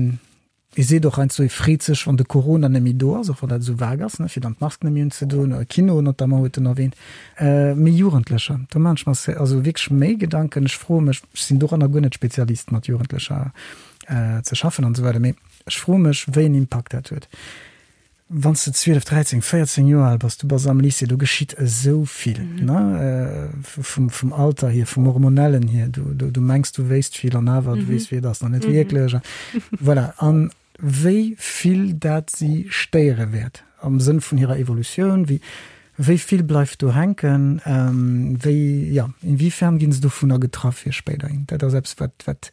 hie seet och heiansdo, hie freet sech, wann de Corona net méi do ass, och wann dat esou vag ass, ne, fir dann d'Mask net méi unzedoen, oder Kino notamment huet en erwähnt. Mee Jugendlecher, do maachen ech mer also wierklech méi Gedanken. Ech froe mech, ech sinn doranner guer net Spezialist, mat Jugendlecher ze schaffen an esou weider, mee Ech froe mech, wéi en Impakt dat huet, wann s de 12, 13, 14 Joer al bass, du bass am Lycée, do geschitt esou vill, ne, vum, vum Alter hier, vum Hormonellen hier, du, du, du mengs, du wéisst vill an awer, du weess, wéi et ass, nach net wierklech. Voilà. An wéi vill dat si stéiere wäert am Sënn vun hirer Evolutioun, wéi, wéi vill bleift do hänken, wéi, jo, inwiefern gi se dovunner getraff fir spéiderhin. Dat ass eppes, wat, wat,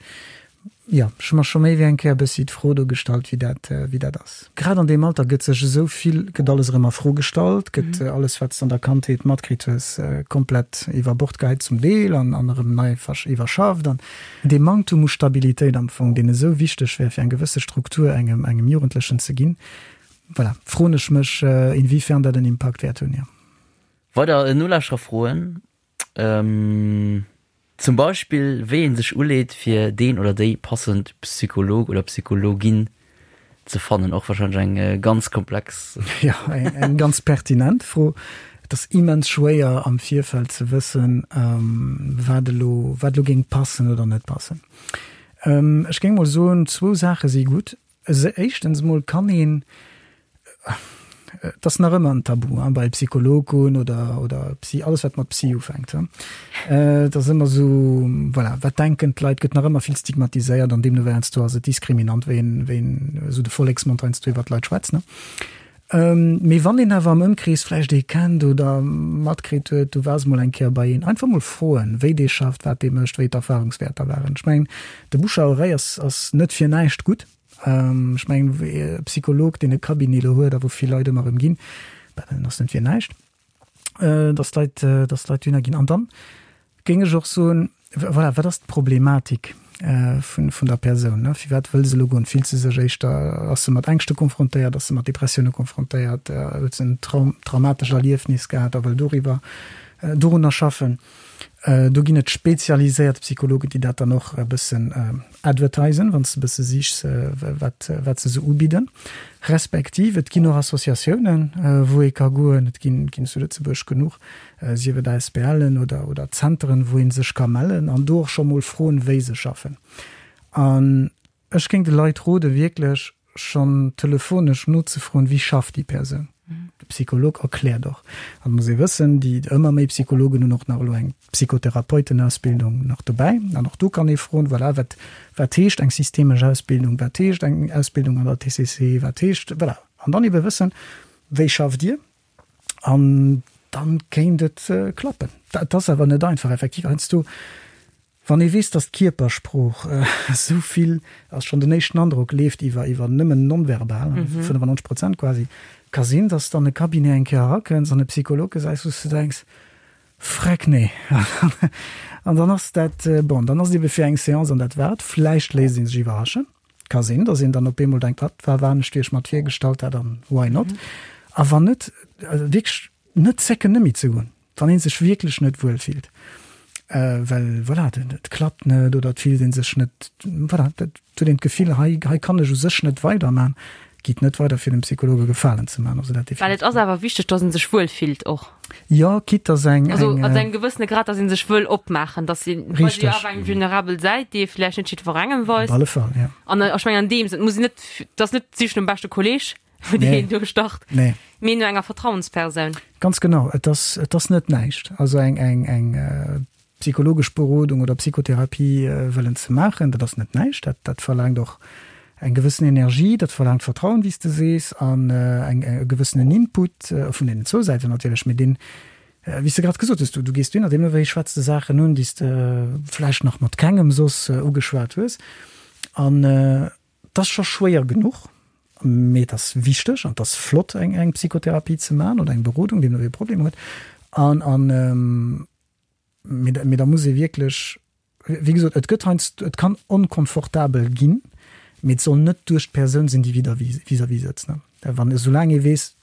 Jo, ech hu mer scho méi wéi eng Kéier e bëssi d'Fro do gestallt, wéi dat, wéi dat ass. Grad an deem Alter gëtt sech esou vill, gëtt alles erëm a Fro gestallt, gëtt alles, wat s de an der Kandheet matkritt hues, komplett iwwer Bord geheit zum Deel an, an erëm nei iwwerschafft. An dee Manktum u Stabilitéit am Fong, deen esou wichteg wär, fir eng gewësse Struktur engem, engem Jugendlechen ze ginn, voilà, froen ech mech, inwiefern dat en Impakt wäert hunn, jo.
Weider Nolauschtererfroen. Zum Beispill wéi ee sech uleet fir deen oder déi passend Psycholog oder Psychologin ze fannen. Och wahrscheinlech eng ganz komplex.
Jo, eng ganz pertinent Fro. Et ass immens schwéier am Virfeld ze wëssen, wat elo, wat elo géing passen oder net passen. Ech géing mol soen, zwou Saache si gutt. Éischtens emol kann een, et ass nach ëmmer en Tabu, hein, bei Psycholog goen oder, oder Psy, alles wat mat Psy ufänkt, hein. Et ass ëmmer esou, voilà, wat denken d'Leit, gëtt nach ëmmer vill stigmatiséiert an deemno wéi heiansdo ass et diskriminant, wéi een, wéi een esou de Volleksmond heiansdo iwwer d'Leit schwätzt, ne. Mee wann een awer am Ëmkrees vläicht ee kennt oder matkritt huet, du waars mol eng Kéier bei een, einfach mol froen, wéi dee schafft, wat dee mécht, wéi d'Erfahrungswäerter waren. Ech mengen, de Bouche à oreille ass, ass net fir näischt gutt. Ech mengen, e Psycholog, deen e Cabinet elo huet a wou vill Leit ëmmer erëm ginn, bah, dat ass net fir näischt. Äh, dass d'Leit, äh, dass d'Leit dohinner ginn. An dann géing ech och soen, voilà, wat ass d'Problematik äh, vun, vun der Persoun? Ne? Firwat wëll se elo goen? Fillt se sech éischter, ass se mat Ängschte konfrontéiert, ass se mat Depressioune konfrontéiert, äh, huet se en Traum, traumatescht Erliefnis gehat a wëll doriwwer, äh, dorunner schaffen? Äh, do ginn et spezialiséiert Psychologen, déi dat dann och e bëssen äh, advertisen, wann s de e bësse sichs, wat, wat se esou ubidden. Respektiv et ginn och Associatiounen, wou ee ka goen. Et ginn, ginn zu Lëtzebuerg genuch, sief et ASBLen oder, oder Zenteren, wou ee sech ka mellen an do och scho mol froen, wéi se schaffen. An ech géing de Leit roden, wierklech schonn telefonesch nozefroen, wéi schafft déi Persoun. De Psycholog erkläert och. An et muss ee wëssen, déi ëmmer méi Psychologen hunn och nach elo eng Psychotherapeutenausbildung nach dobäi. An och do kann ee froen, voilà, wat, wat heescht eng systemesch Ausbildung, wat heescht eng Ausbildung an der TCC, wat heescht, voilà. An dann ebe wëssen, wéi schafft Dir? An dann kéint et klappen. Dat ass awer net einfach, effektiv. Heiansdo. Wann ee weess, dass d'Kierpersprooch esou vill ass, schonn den éischten Androck leeft iwwer iwwer nëmmen nonverbal, 95 Prozent quasi, ka sinn, dass dann e Cabinet eng Kéier erakënns an e Psycholog gesäis, wou s de denks, Freck nee! An dann ass dat, bon, dann ass et ebe fir eng Seance an dat war et. Vläicht léisst ee sech iwwerraschen. Ka sinn, dass een dann op eemol denkt, dat war anescht wéi ech mer et virgestallt hat an why not? A wann net, also wierklech net zécken net méi ze goen. Wann ee sech wierklech net wuel fillt, well voilà, et klappt net oder et fillt ee sech net, voilà, et huet een d'Gefill, hei, hei kann ech u sech net weiderman, gitt net weider fir dem Psycholog e Gefalen ze man. Also dat
definitiv. Well et ass awer wichteg, dass ee sech wuel fillt och.
Jo, quitte dass eng,
Also eng, an engem gewëssene Grad, dass ee sech wëll opmaachen, dass een, weist jo awer eng vulnerabel Säit, déi ee vläicht net jiddwerengem weist.
Op alle Fall, jo.
An ech mengen an deem Sënn, et muss een net, et ass net d'Sich nom beschte Kolleg,
Nee.
deen do start,
Nee.
mee no enger Vertrauenspersoun.
Ganz genau, et ass, et ass net näischt. Also eng, eng, eng äh, psychologesch Berodung oder Psychotherapie äh, wëllen ze maachen, dat ass net näischt. Dat, dat verlaangt och eng gewëssen Energie, dat verlaangt Vertrauen, wéi s de sees, an äh, eng, e gewëssenen Input äh, vun deenen zwou Säiten natierlech, mee deen, äh, wéi s de grad gesot hues, du, du gees dohin a deemno wéi schwätz de Saachen un, déi s de vläicht nach mat kengem soss äh, ugeschwat hues. An äh, 't ass scho schwéier genuch, mee et ass wichteg an et ass flott eng eng Psychotherapie ze man oder eng Berodung, deemno wee e Problem huet. An an mee mee da muss ee wierklech, wéi gesot, et gëtt heiansdo, et kann onkonfortabel ginn, mee et soll net duerch d'Persoun sinn, déi vis-à-vis vis-à-vis sëtzt, ne. Wann esoulaang ee weess,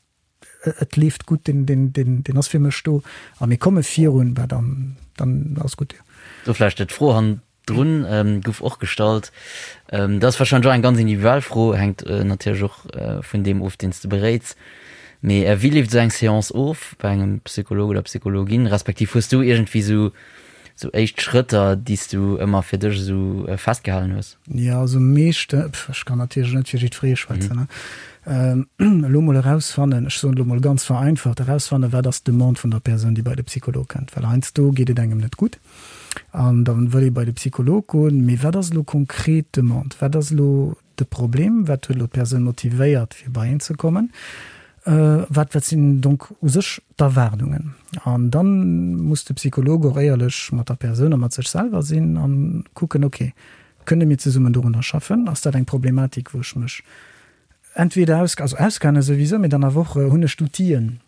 et leeft gutt, deen deen deen deen ass fir mech do a mir komme virun, bah dann dann ass gutt, jo.
Do vläicht d'Fro hannendrun gouf och gestallt, dat ass warscheinlech och eng ganz individuell Fro, hänkt natierlech och vun deem of, deen s de beréits, mee wéi leeft esou eng Seance of bei engem Psycholog oder Psychologin, respektiv hues du iergendwéi esou Sou éischt Schrëtter, déi s du ëmmer fir dech esou festgehalen hues?
Jo, also meeschte, ech kann natierlech net fir jiddweree schwätzen, ne, elo mol erausfannen, ech soen elo mol ganz vereinfacht, erausfannen, wat ass d'Demande vun der Persoun, déi bei de Psycholog kënnt, well heiansdo geet et engem net gutt an da wëll ee bei de Psycholog goen, mee wat ass elo konkret d'Demande, wat ass elo De Problem, wat huet elo d'Persoun motivéiert, fir bei een ze kommen? Wat, wat sinn donc u sech d'Erwaardungen? An da muss de Psycholog och éierlech mat der Persoun a mat sech selwer sinn a kucken, ok, kënne mir zesummen dorunner schaffen? Ass dat eng Problematik, wou ech mech entweder aus, also auskenne souwisou, mee dann awer och, hunn ech d'Outill'en,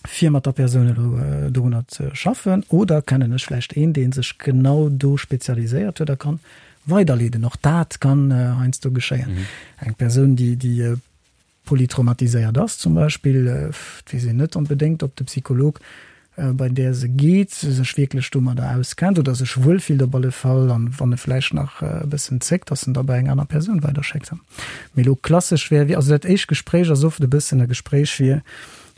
fir mat der Persoun elo dorunner ze schaffen, oder kennen ech vläicht een, dee sech genau do spezialiséiert huet a kann weiderleeden. Och dat kann heiansdo geschéien. Eng Persoun, déi déi polytraumatiséiert ass zum Beispill, et weess een net onbedéngt, ob de Psycholog, bei där se geet, sech wierklech domadder auskennt oder sech wuelfillt op alle Fall, an wann e vläicht nach e bëssen zéckt, datt en da bei eng aner Persoun weiderschéckt. Mee elo klassesch wär, also dat éischt Gespréich ass oft e bëssen e Gespréich fir,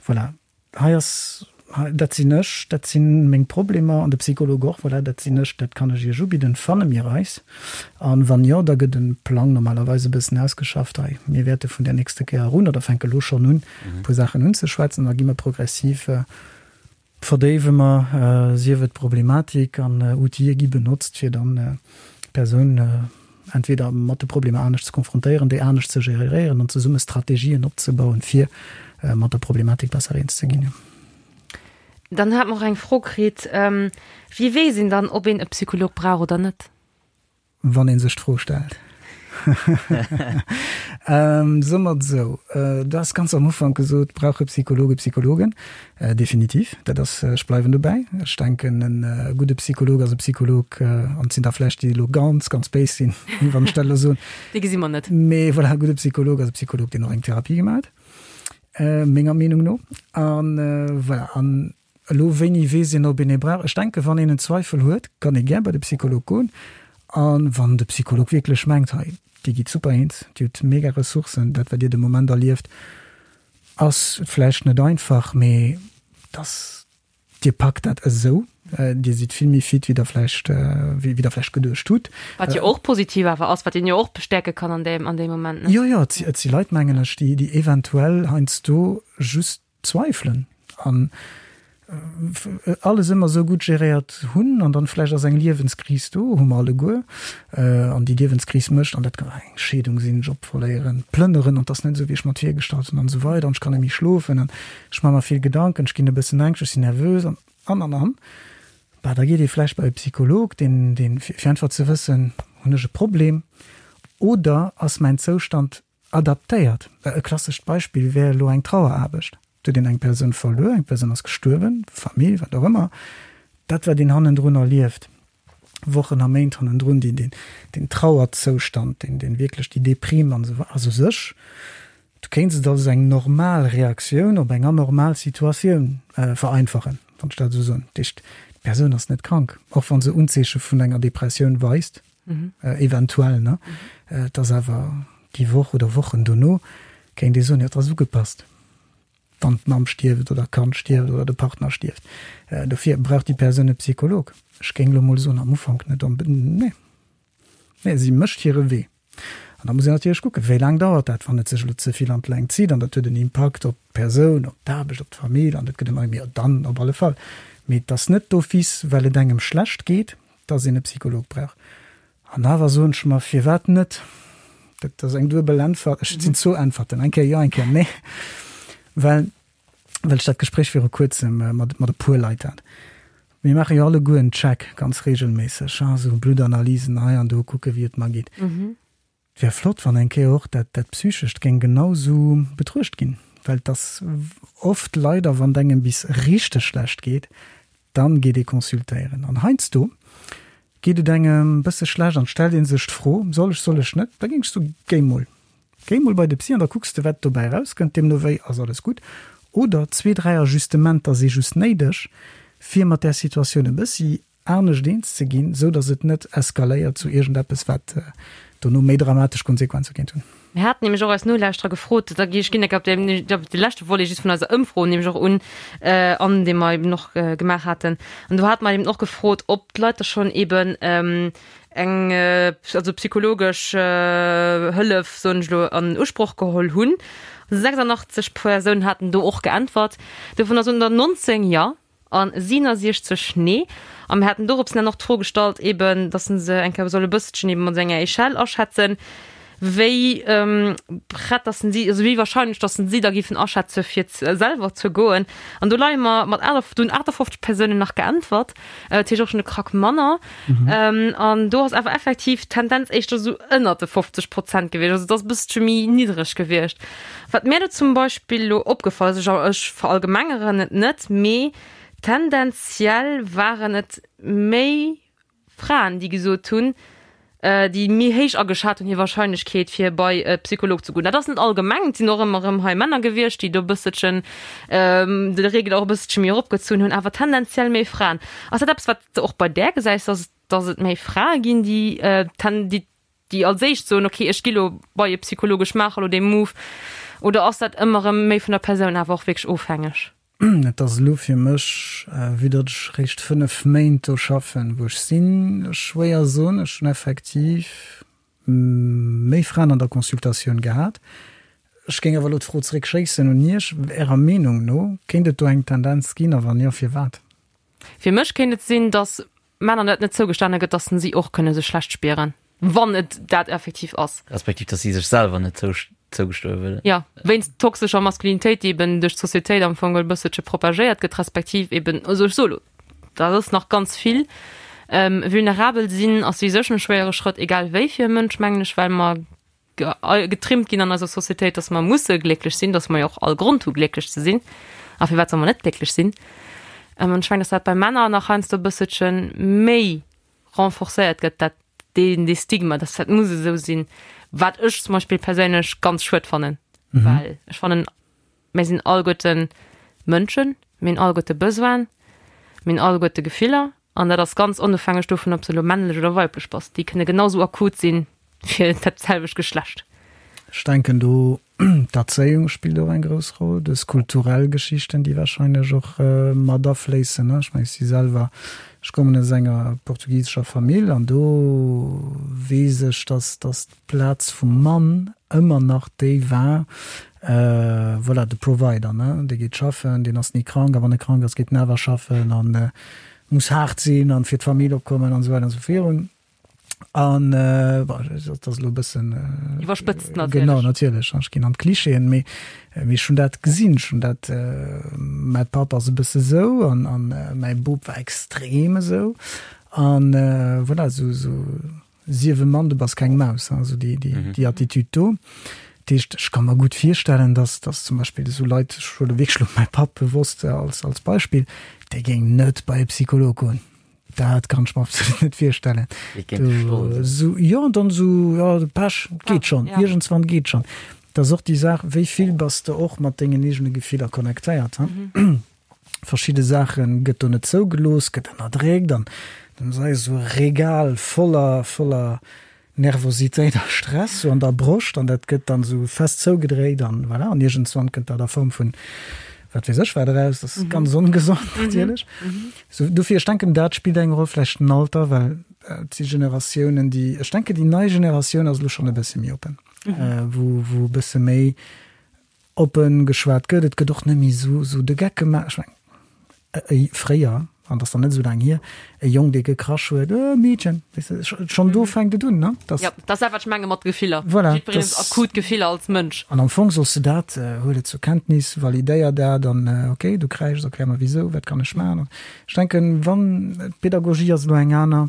Voilà, hei ass, dat sinn ech, dat si meng Problemer an de Psycholog och, voilà, dat sinn ech, dat kann ech Iech ubidden, fanne mir eis? An wann jo, da gëtt e Plang normalerweis e bëssen ausgeschafft, hei, mir wäerte vun der nächste Kéier erun oder fänke lo schonn un, e puer Saachen unzeschwätzen, da gi mer progressiv, verdéiwe mer, sief et d'Problematik an Outile gi benotzt, fir dann d'Persoun entweder mat de Problemer anescht ze konfrontéieren, déi anescht ze geréieren an zesumme Strategien opzebauen, fir mat der Problematik besser eens ze ginn.
Dann hat mer och eng Fro kritt, Wéi weess een dann, ob een e Psycholog brauch oder net?
Wann ee sech d'Fro stellt. Soe mer et esou, du has ganz am Ufank gesot, brauche Psychologe Psychologen? Definitiv, dat ass, ech bleiwen dobäi. Ech denken, e gudde Psycholog ass e Psycholog, an et sinn der vläicht, déi elo ganz, ganz béis sinn, wann ech dat elo soen.
Déi gesi mer net.
Mee voilà, e gudde Psycholog ass e Psycholog, deen och eng Therapie gemaach huet, menger Meenung no. An voilà, an Elo, wéini weess een, ob een ee brauch? Ech denken, wann een en Zweifel huet, kann ee gär bei de Psycholog goen. A wann de Psycholog wierklech mengt, hei, Dir gitt super eens, Dir hutt mega Ressourcen, dat wat Dir de Moment erlieft, ass vläicht net einfach, mee dass Dir packt dat esou, Dir sidd vill méi fit, wéi Der vläicht, wéi Der vläicht geduecht hutt.
Wat jo och positiv awer ass, wat een jo och bestäerke kann an deem, an deem Moment,
ne? Jo, jo, et si Leit, mengen ech, déi, déi eventuell heiansdo just Zweifelen an alles ëmmer esou gutt geréiert hunn an dann vläicht ass eng Liewenskris do, hu mer alleguer, an déi Liewenskris mécht, an dat kann eng Scheedung sinn, Job verléieren, plënneren an 't ass net esou wéi ech mer et virgestallt hunn an esou weider an ech kann net méi schlofen an ech maache mer vill Gedanken, ech ginn e bëssen ängschtlech, sinn nervös an an an an. Bah, da geet ee vläicht bei e Psycholog, deen, deen, fir einfach ze wëssen, hunn ech e Problem oder ass mäin Zoustand adaptéiert? E klassescht Beispill wär elo eng Traueraarbecht. Et huet een eng Persoun verluer, eng Persoun ass gestuerwen, Famill, wat och ëmmer. Dat, wat een hannendrun erlieft, Wochen a Méint hannendrun, deen, deen, deen Trauerzoustand, deen, deen wierklech déi Deprime an esou weider, ass u sech, du kéints et als eng normal Reaktioun op eng anormal Situatioun vereinfachen, wann ech dat esou soen. Dat heescht, d'Persoun ass net krank, och wa se Unzeeche vun enger Depressioun weist, eventuell, ne? Et ass awer déi Woch oder Wochen dono, kéint ee soen, jo, et ass ugepasst. Wann d'Mamm stierft oder d'Kand stierft oder de Partner stierft. Dofir brauch déi Persoun e Psycholog. Ech géing elo mol soen, am Ufank net onbedéngt, nee. Nee, si mécht hire Wee. An da muss een natierlech kucken, wéi laang dauert dat, wann et sech elo ze vill an d'Längt zitt an dat huet en Impakt op d'Persoun, op d'Aarbecht, op d'Famill an dat gëtt ëmmer méi, jo dann op alle Fall. Mee et ass net d'office, well et engem schlecht geet, dass een e Psycholog brauch. An awer soen ech mer, firwat net? Dat ass eng duebel Äntwert. Ech sinn zwou Äntwerten, eng Kéier jo, eng Kéier nee. Well, well ech dat Gespréich viru kuerzem mat, mat e puer Leit hat. Mir maache jo alleguer en Check ganz regelméisseg, ha, esou Bluttanalysen hei an do, kucke wéi et mer geet. Et wär flott, wann eng Kéier och dat, dat Psychescht géing genau esou betruecht ginn. Well et ass oft leider, wann et engem bis richteg schlecht geet, dann geet ee consultéieren. An heiansdo geet et engem bësse schlecht an stellt ee sech d'Fro, soll ech, soll ech net? Da géing ech soen, géi mol. Géi mol bei de Psy an da kucks de, wat dobäi erauskënnt. Deemno wéi ass alles gutt. Oder zwee, dräi Ajustementer si just néideg, fir mat där Situatioun e bëssi anescht eens ze ginn, esou datt et net eskaléiert zu iergendeppes, wat dono méi dramatesch Konsequenze kéint hunn.
Mir haten nämlech och eis Nolauschterer gefrot, da gi ech ginn op de leschte Volet just vun eiser Ëmfro nämlech och un, an dee mer eben och gemaach haten. An do hate mer eben och gefrot, ob d'Leit da schonn eben eng also psychologesch Hëllef, soen ech elo, an Usproch geholl hunn. 86 Persounen haten do och geäntwert, dovunner soen der 19 Jo. A 67 Nee. A mir haten dorops dann och d'Fro gestallt, eben, dass se eng Kéier solle bësselchen eben mat enger Échelle aschätzen, wéi prett dass si, also wéi wahrscheinlech dass si da géifen aschätze fir selwer ze goen. An do leie mer mat, do hunn 58 Persounen nach geäntwert, dat heescht och schonn e Krack manner. An do ass awer effektiv d'Tendenz éischter esou ënnert de 50 Prozent gewiescht, also et ass e bësselche méi niddreg gewiescht. Wat mär do zum Beispill elo opgefall ass, ech ech verallgemengeren et net, mee tendenziell waren et méi Fraen, déi gesot hunn, déi méi héich ageschat hunn hir Wahrscheinlechkeet fir bei e Psycholog ze goen. Dat ass net allgemeng, et sinn och ëmmer erëm hei Männer gewiescht, déi do e bësselchen de Regel och e bësselche méi eropgezunn hunn, awer tendenziell méi Fraen. Ass dat eppes, wat s de och bei där gesäis, dass dass et méi Frae ginn, déi déi déi als éischt soen, okay, ech gi lo bei e Psycholog, ech maache lo dee Move, oder ass dat ëmmer erëm méi vun der Persoun awer och wierklech ofhängeg?
Et ass elo fir mech, vue datt ech réischt 5 Méint do schaffen, wou ech sinn, schwéier soen. Ech hunn effektiv méi Fraen an der Consultatioun gehat. Ech géing awer elo d'Fro zeréckschéissen un Iech, Ärer Meenung no, kéint et do eng Tendenz ginn a wann jo, firwat?
Fir mech kéint et sinn, datt Männer dat net zougestane gëtt, dass si och kënne sech schlecht spieren, wann et dat effektiv ass.
Respektiv, dass si sech selwer net zougestoe wëllen.
Jo, wéinst toxescher Maskulinitéit, déi eben duerch d'Sociétéit am Fong e bësselche propagéiert gëtt, respektiv eben, also ech soe lo, dat ass nach ganz vill, vulnerabel sinn ass souwisou schonn e schwéiere Schrëtt, egal wéi fir e Mënsch, mengen ech, well mer getrimmt ginn an eiser Societéit, dass mer musse glécklech sinn, dass mer jo och all Grond hu glécklech ze sinn. A firwat soll mer net glécklech sinn? An ech mengen, dass dat bei Männer nach heiansdo e bësselche méi renforcéiert gëtt, dat deen dee Stigma, dass dat muss esou sinn, wat ech zum Beispill perséinlech ganz schued fannen, well ech fannen, Mir sinn alleguerte Mënschen, mir hunn alleguerte Besoinen, mir hunn alleguerte Gefiller an dat ass ganz onofhängeg dovun, ob s de elo männlech oder weiblech bass. Déi kënne genau sou akut si fir dat selwecht Geschlecht.
Ech denken do, d'Erzéiung spillt och eng grouss Roll, dës kulturell Geschichten, déi warscheinlech och mat afléissen. Ech mengen, ech si selwer, ech kommen aus enger portugisescher Famill an do weess ech, dass, dass d'Plaz vum Mann ëmmer nach déi war, voilà, de Provider, ne, dee geet schaffen, deen ass ni krank, a wann e krank ass, geet en awer schaffen a muss haart sinn an fir d'Famill opkommen an esou weider an esou virun. An bon, dat ass elo e bëssen.
Iwwerspëtzt
natierlech. Genau, natierlech, ech ginn an d'Klischeeën, mee mee ech hunn dat gesinn, ech hunn dat, mäi Papp ass e bësse sou an an mäi Bop war extrem esou an voilà, esou esou sief e Mann, du bass keng Maus, hein, esou déi déi déi Attitude do. Dat heescht, ech ka mer gutt virstellen, datt datt zum Beispill esou Leit, ech huele wierklech elo mäi Papp bewosst als als Beispill, dee géing net bei e Psycholog goen. Dat kann ech mer absolut net virstellen. So, jo, an dann so, ja, de Pech, geet schon, ja. Iergendswann geet schon. Dat ass och déi Saach, wéi vill bass de och mat dengen eegene Gefiller connectéiert, hm? Mhm. Verschidde Saache gëtt do net zougelooss, gëtt ënnerdréckt an dann ass esou e Regal voller, voller Nervositéit a Stress sou an der Broscht an dat gëtt dann sou fest zougedréit an voilà an iergendswann kënnt dat a Form vun wat weess ech wat eraus. Dat ass ganz ongesond natierlech. Sou dofir ech denken dat spillt eng Roll, vläicht den Alter, well et si Generatiounen déi, ech denken déi nei Generatioun ass elo schonn e bësse méi oppen, wou wou e bësse méi oppen geschwat gëtt. Et gëtt och net méi esou esou de Geck gemaach. Ech mengen, fréier, an dat ass dann net esou laang hier, e Jong, dee gekrasch huet, Oh Meedchen, weess de, schonn do fänkt et un, ne?
Dass. Jo, dat ass dat, wat ech menge mat Gefiller.
Voilà,
Jiddwereen huet akut Gefiller als Mënsch.
An am Fong solls de dat, huel et zur Kenntnis, validéier dat an, okay, du kräischs, erklär mer wisou, wat kann ech maachen? Ech denken, wann, d'Pedagogie ass elo eng aner,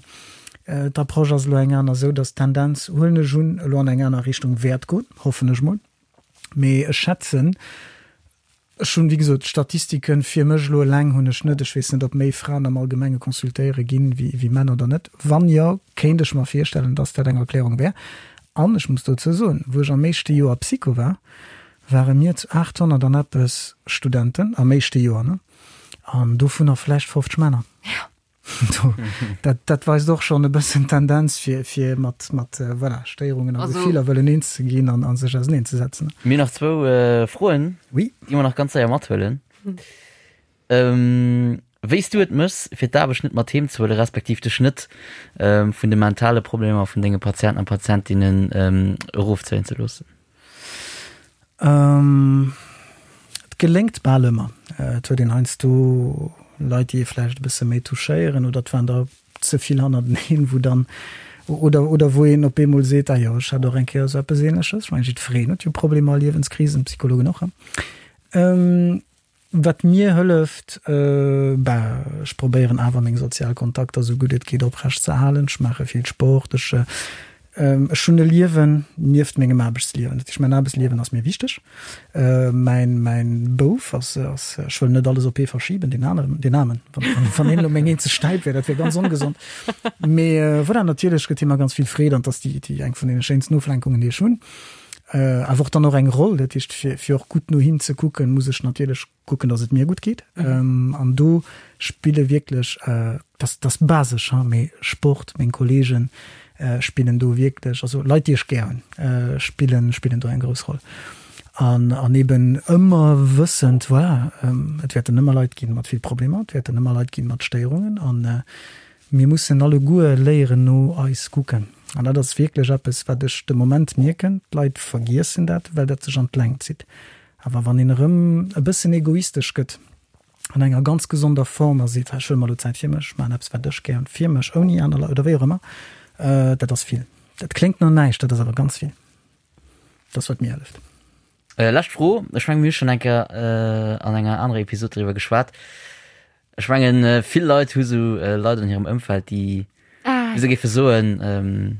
d'Approche ass elo eng aner, esou datt d'Tendenz, huelen ech un, elo an eng aner Richtung wäert goen, hoffen ech mol. Mee ech schätzen, ech hunn, wéi gesot, d'Statistike fir mech elo eleng hunn ech net. Ech weess net, ob méi Fraen am Allgemenge consultéiere ginn wéi Männer oder net. Wann jo, kéint ech mer virstellen, dass dat eng Erklärung wär. An ech muss dozou soen, wou ech am éischte Joer Psycho war, ware mir zu 800 an eppes Studenten, am éischte Joer, ne, an dovunner vläicht 50 Männer. Dat, dat weist och schonn e bëssen d'Tendenz, fir, fir mat, mat voilà, Stéierungen a Gefiller wëllen eens ze ginn an, a sech auseneen ze setzen.
Mir hunn nach zwou Froen,
oui.
déi mer nach ganz séier mathuelen. Wéi s du et méchs, fir d'Aarbecht net mat heem ze huelen, respektiv dech net vun de mentale Problemer vun denge Patienten a Patientinnen erofzéien ze loossen?
Et geléngt bal ëmmer. Et huet een heiansdo Leit, déi ee vläicht e bësse méi touchéieren oder et waren der ze vill hannerteneen, wou dann, oder, oder wou een op eemol seet, ah jo, ech hat och eng Kéier esou eppes Ähnleches. Ech mengen, jiddwereen huet jo Problemer a Liewenskrisen, Psychologen och. Wat mir hëlleft, bah, ech probéieren awer meng sozial Kontakter esou gutt et geet oprecht ze halen. Ech maache vill Sport, ech, ech hunn e Liewen nieft mengem Aarbechtsliewen. Dat heescht, mäin Aarbechtsliewen ass mir wichteg. Mäin, mäin Bouf ass, ass, ech wëll net alles op hee verschiben, deen aneren, deen Aarmen, wann, wann hien elo meng eenzeg Stäip wär, dat wär ganz ongesond. Mee voilà, natierlech gëtt hie mer ganz vill Freed an 't ass déi, déi eng vun deene schéinsten Oflenkungen, déi ech hunn. Awer och dann och eng Roll, dat heescht fir, fir och gutt no him ze kucken, muss ech natierlech kucken, datt et mir gutt geet. An do spille wierklech, dat ass basesch, ha, mee Sport, meng Kolleegen spillen do wierklech, also Leit, déi ech gär hunn, spillen, spillen do eng grouss Roll. An, an eben ëmmer wëssend, voilà, et wäerten ëmmer Leit ginn mat vill Problemer, et wäerten ëmmer Leit ginn mat Stéierungen an Mir mussen alleguer léieren no eis kucken. An dat ass wierklech eppes, wat ech de Moment mierken, D'Leit vergiessen dat, well dat sech an d'Längt zitt. Awer wann een erëm e bëssen egoistesch gëtt, an enger ganz gesonder Form, a seet, ech huele mer elo Zäit fir mech, ech maachen eppes, wat ech gär hunn, fir mech, ouni aner Leit oder wéi och ëmmer, dat ass vill. Dat kléngt no näischt, dat ass awer ganz vill. Dat ass, wat mir hëlleft.
Lescht Fro, ech menge mir hu schonn eng Kéier an enger anerer Episod driwwer geschwat. Ech mengen vill Leit hu sou Leit an hirem Ëmfeld, déi ah. wéi se géife soen, ähm,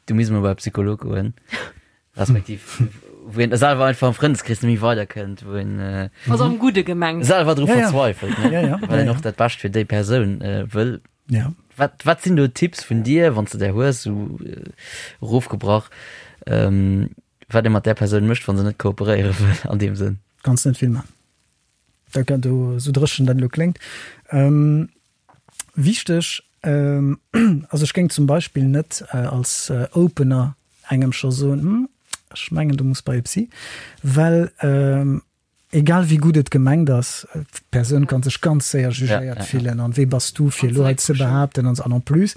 du misst mol bei Psycholog goen. Respektiv wou een selwer einfach am Frëndeskrees net méi weiderkënnt, wou een äh,
Also am Gudde gemengt.
selwer dru
Ja, ja.
verzweifelt, ne?
Ja, ja.
well een
Ja,
och dat Bescht fir déi Persoun äh, wëll.
Ja.
Wat, wat sinn do Tipps vun dir, wann s de där hues, sou äh, erofgebrach, ähm, wat ee mat där Persoun mécht, wann se net kooperéiere wëll an deem Sënn?
Kanns net vill man. Dat kann do esou dréchen dat elo kléngt. Wichteg, also ech géing zum Beispill net als Opener engem scho soen, hm, ech mengen du muss bei e Psy, well egal wéi gutt et gemengt ass, d'Persoun kann sech ganz séier jugéiert fillen an wee bass du fir elo hei ze behaapten an esou. An en plus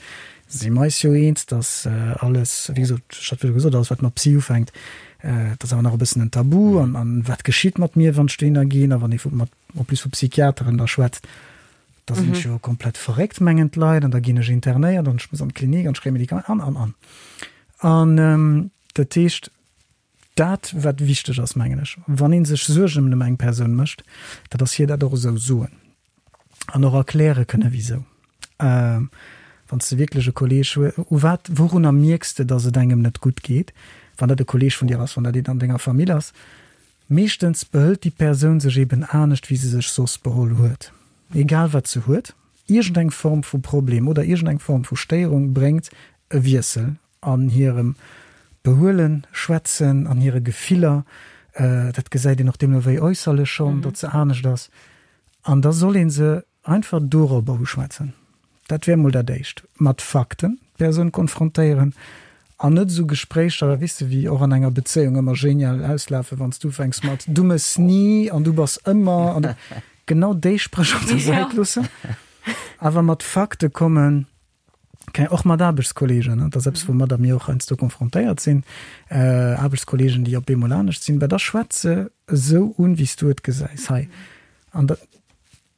si mer eis jo eens, datt alles, wéi gesot, ech hat virdru gesot, alles wat mat Psy ufänkt, dat ass awer nach e bëssen en Tabu an, an wat geschitt mat mir, wann ech dohinner ginn a wann ee vu mat en plus vu Psychiateren da schwätzt. Da sinn ech jo komplett verréckt, mengen d'Leit, an da ginn ech internéiert an ech muss an d'Klinik an ech kréie Medikamenter an, an, an. An dat heescht, dat wat wichteg ass, mengen ech, wann ee sech Suergen ëm eng Persoun mécht, dat ass hir dat och esou soen an och erkläre kënne wisou. Wann s de wierklech e Kolleeg hues, u wat, wourunner mierks de, datt et engem net gutt geet, wann dat e Kolleeg vun dir ass, wann dat een an denger Famill ass? Meeschtens behëlt déi Persoun sech eben anescht wéi se sech soss beholl huet. Egal wat se huet, iergendeng Form vu Problem oder iergendeng Form vu Stéierung bréngt e Wiessel an hirem Behuelen, Schwätzen, an hire Gefiller. Dat gesäit een och deemno wéi äusserlech schonn, datt se anescht ass. An da soll ee se Einfach dorobber uschwätzen, dat wär mol dat Éischt. Mat Fakten d'Persoun konfrontéieren an net esou Gespréicher, weess de, wéi och an enger Bezéiung ëmmer genial auslafen, wann s du ufänks mat du mëss ni an du bass ëmmer an du, genau déi Spréch op der Säit loossen, awer mat Fakte kommen, keng, och mat Aarbechtskolleegen, dat ass eppes, woumadder mir och heiansdo konfrontéiert sinn, Aarbechtskolleegen, déi op eemol anescht sinn, bah da schwätz se esou un, wéi s du et gesäis hei an da.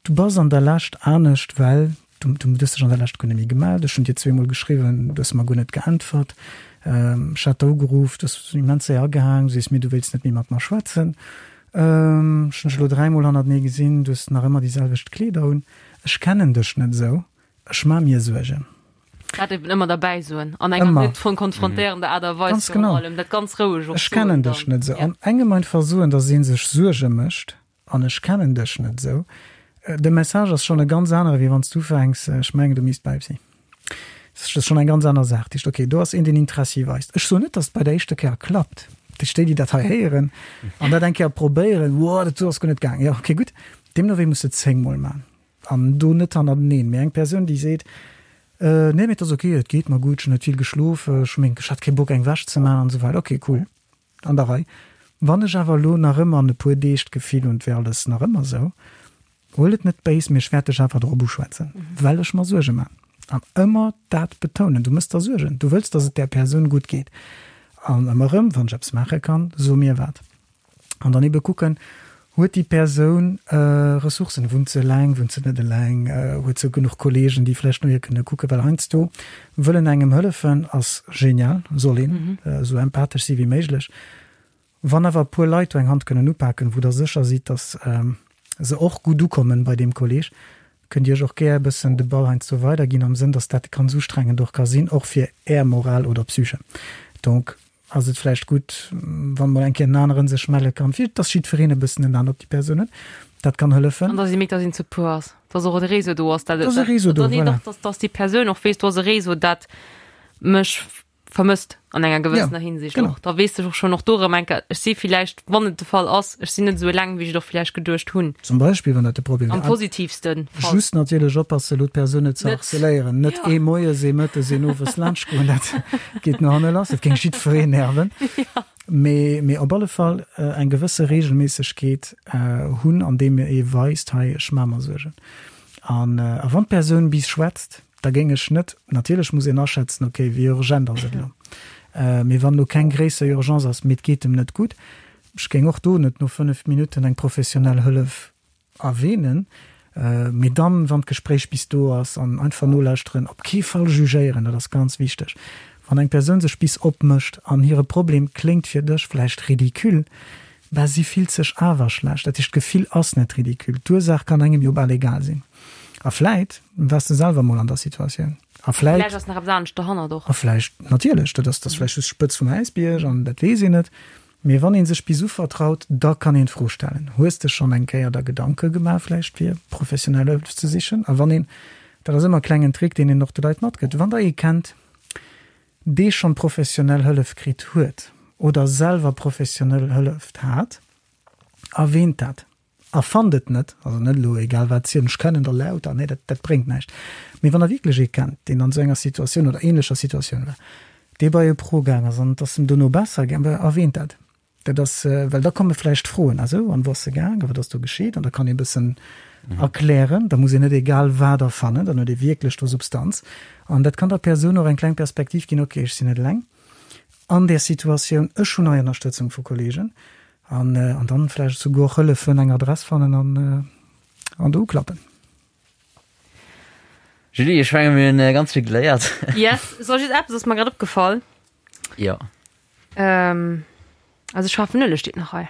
Du bass an der Lescht anescht, well du, du hues dech an der Lescht guer net méi gemellt. Ech hunn dir zweemol geschriwwen, du hues mer guer net geäntwert. Ech hat der ugeruff, du hues immens séier agehaang, du sees mir, du wéilts net méi mat mer schwätzen. Ech hunn dech elo dräimol hannertenee gesinn, du hues nach ëmmer déi selwecht Kleeder un. Ech kennen dech net esou, ech maa mir Suergen.
Dat eben ëmmer derbäi soen, an enger net von konfrontéierender Aart a Weis
virun
allem, dat ganz roueg
och soen. Ech kennen dech net esou. An engem einfach soen, dass ee sech Suerge mécht, An ech kennen dech net esou. De Message ass schonn e ganz anere wéi wann s du ufänks, ech mengen du misst Bäib sinn. Dat ass schonn eng ganz aner Saach. Dat heescht, okay, do ass een, deen Interessi weist. Ech soen net, datt et bei der éischter Kéier klappt. Dat heescht, déi, déi dat hei héieren an dat eng Kéier probéieren, Woah, dat do ass guer net gaangen. Jo, okay, gutt. Deemno wéi muss de zéngmol maachen. An do net hannerteneen. Mee eng Persoun, déi seet, Nee, mee et ass okay, et geet mer gutt, ech hunn net vill geschlof, ech hu meng, ech hat kee Bock eng Wäsch ze maachen an esou weider. Okay, cool. An der Rei. Wann ech awer elo nach ëmmer an e puer Deeg d'Gefill hunn, et wär alles nach ëmmer esou, huel et net béis, mee ech wäert dech awer drop uschwätzen, well ech mer Suerge man. An ëmmer dat betounen, du mëss der Suergen, du wëlls, dass et där Persoun gutt geet. An ëmmer erëm, wann ech eppes maache kann, so mir wat. An dann ebe kucken, Huet déi Persoun Ressourcen? Wunnt se eleng, wunnt se net eleng? Huet se genuch Kolleegen, déi vläicht no hir kënne kucken? Well heiansdo wëllen engem hëllefen ass genial, soll een esou empathesch si wéi méiglech. Wann awer e puer Leit do eng Hand kënnen upaken, wou Der sécher sidd, datt se och gutt ukommen bei deem Kolleeg, kënnt Dir iech och gär e bëssen de Ball heiansdo weiderginn, am Sënn, datt dat ganz ustrengend och ka sinn, och fir Är Moral oder Psyche. Donc ass et vläicht gutt, wann mol eng Kéier en aneren sech melle kann, fir dass jiddwereen e bëssen en An op déi Persoun huet. Dat kann hëllefen.
An dass ee mierkt, dass een zu puer ass, dass och e Réseau do ass, dat,
Dass e Réseau do,
voilà. Dass, dass déi Persoun och weess, do ass e Réseau, dat mech vermësst an enger gewëssener ja, Hinsicht
genau.
och. Da weess de och schonn och do erëm eng Kéier, ech si villäicht, wann et de Fall ass, ech sinn net esou eleng, wéi ech et och villäicht geduecht hunn.
Zum Beispill, wann dat de Problem
wär. Am positivsten
Fall. Just natierlech oppassen, elo d'Persoun net ze harceléieren. Net ee moies, ee mëttes, een owes laanscht goen, dat geet no hanne lass. Dat géing jiddwereen nerven. Mee, mee op alle Fall eng gewësse Reegelméissegkeet hunn, andeem ee weist, hei, ech maache mer Suergen. An, a wann d'Persoun bis schwätzt, da géing ech net, natierlech muss een aschätzen, okay, wéi urgent ass et elo? Mee wann elo keng gréisser Urgence ass, mee et geet em net gutt, Ech géing och do net no 5 Minutten eng professionell Hëllef erwähnen, mee dann, wann d'Gespréich bis do ass, an einfach nolauschteren, op kee Fall jugéieren, dat ass ganz wichteg. Wann eng Persoun sech bis opmécht an hire Problem kléngt fir dech vläicht ridicule, bah, si fillt sech awer schlecht. Dat heescht, d'Gefill ass net ridicule, d'Ursaach kann engem jo bal egal sinn. A vläit waars de selwer mol an der Situatioun. A vläit.
Vläicht ass nach eppes anescht dohannert och.
A vläicht, natierlech, dat ass, dat ass vläicht just d'Spëtz vum Äisbierg an dat weess een net. Mee wann ee sech bis uvertraut, da kann een d'Fro stellen, Hues de schonn eng Kéier der Gedanke gemaach vläicht fir professionell Hëllef ze sichen? A wann een, dat ass ëmmer e klengen Trick, deen een och de Leit matgëtt, wann der ee kennt, dee schonn professionell Hëllef kritt huet oder selwer professionell Hëllef hat, erwähnt dat. A fannt et net, also net elo egal wat zielen, ech kennen der lauter, nee, dat, dat bréngt näischt. Mee wann der wierklech ee kennt, deen an esou enger Situatioun oder ähnlecher Situatioun war, dee bei e Pro gaang ass an et ass em dono besser gaang, bah, erwähnt dat. Dat ass, well da komme vläicht Froen, ah sou, an wou ass se gaang a wat ass do geschitt? An da kann ee bëssen erklären, da muss een net egal wat erfannen, dann huet ee wierklech do Substanz. An dat kann der Persoun och eng kleng Perspektiv ginn, okay, ech sinn net eleng an där Situatioun, ech hunn hei Ënnerstëtzung vu Kollegen. An, an dann vläicht souguer och hëllefen, eng Adress fannen an, an do uklappen.
Julie, ech menge mir hunn ganz vill geléiert.
Yes, soll ech just eppes ass mer grad opgefall.
Jo.
Ähm, also schaarfen Ueleg steet nach hei.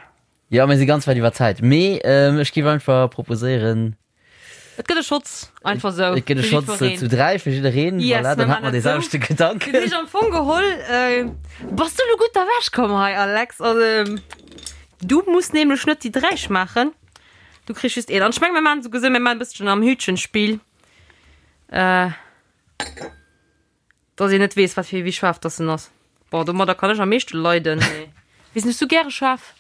Jo, mir si ganz wäit iwwer Zäit. Mee ech géif einfach proposéieren.
Et gëtt e Schotz, einfach sou.
Et gëtt e Schotz zu 3 fir jiddereen.
Yes,
voilà, dann hat mer dee selwechte Gedanken.
Hunn ech am Fong geholl. Äh, bass du lo gutt ewech komm hei, Alex? Also, du muss nämlech net déi 3 schmaachen. Du kriss just een. An ech meng, mir maachen sougesou, mir maachen e bësschen am Hütchenspill. Äh. Dass een net weess, wat fir wéi schaarf dass en ass. Bon, domadder kann ech am meeschte leiden, mee weess net, hues du gäre schaarf?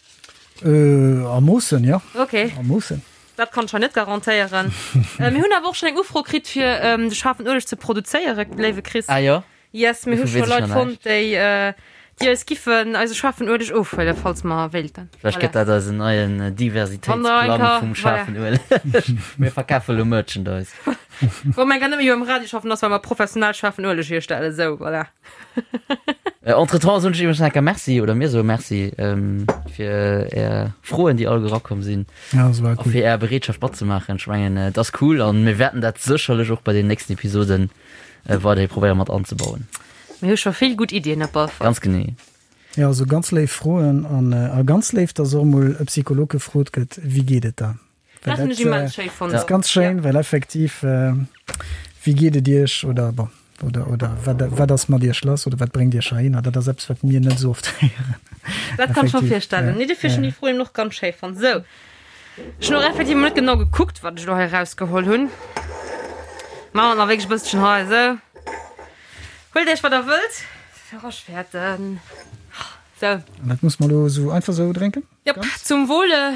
Äh, a Moossen, jo.
Okay.
A Moossen.
Dat kann ech hei net garantéieren. Mir hunn awer och schonn eng Ufro kritt, fir de schaarfen Ueleg ze produzéieren, léiwe Chris.
Ah jo?
Yes, mir hu
Dovun
scho
weess ech
Leit
nach
fonnt,
näischt.
déi, déi eis giffen eise schaarfen Ueleg ofhuelen, falls mer wéilten.
Vläicht
Voilà.
gëtt dat eisen neien
Wann der eng
Diversitéitsplang
Ka-
vum
voilà.
schaarfen Ueleg. Mir verkafe lo Merchandise.
Bon, mir kann net méi um Radio schaffen, ass well mer professionell schaarfen Ueleg hierstellen, sou, voilà.
Entretemps soen ech iwwregens nach eng Kéier Merci, oder mir soe Merci, fir Är Froen, déi all gerakomm sinn.
Ja, das war
A
cool.
fir Är Bereetschaft matzemaachen. Ech mengen, et ass cool an mir wäerten dat sécherlech och bei den nächsten Episoden weiderhi probéiere mat anzebauen.
Mir hu scho vill gutt Iddien op alle Fall.
Ganz genee.
Ja, also ganz léif Froen an a ganz léif, dass och emol e Psycholog gefrot gëtt, Wie geet et da?
Dat hunn ech immens schéi fonnt.
Dat ass ganz schéin, well effektiv, wéi geet et Iech oder bon, oder, oder wat, wat ass mat Iech lass oder wat bréngt Iech heihinner? Dat ass eppes, wat mir net esou oft héieren.
Dat kann ech mer
Effektiv,
virstellen.
ja,
Nee, dofir hunn
ja.
déi Fro eben och ganz schéi fonnt. Sou, ech hunn och effektiv mol net genau gekuckt, wat ech elo hei erausgeholl hunn. Maache mer nach wierklech e bësschen hei esou. Huelt Iech, wat Der wëllt. Ech fäerten. Sou.
An dat muss mer elo esou einfach esou drénken?
Jop, zum Wohle.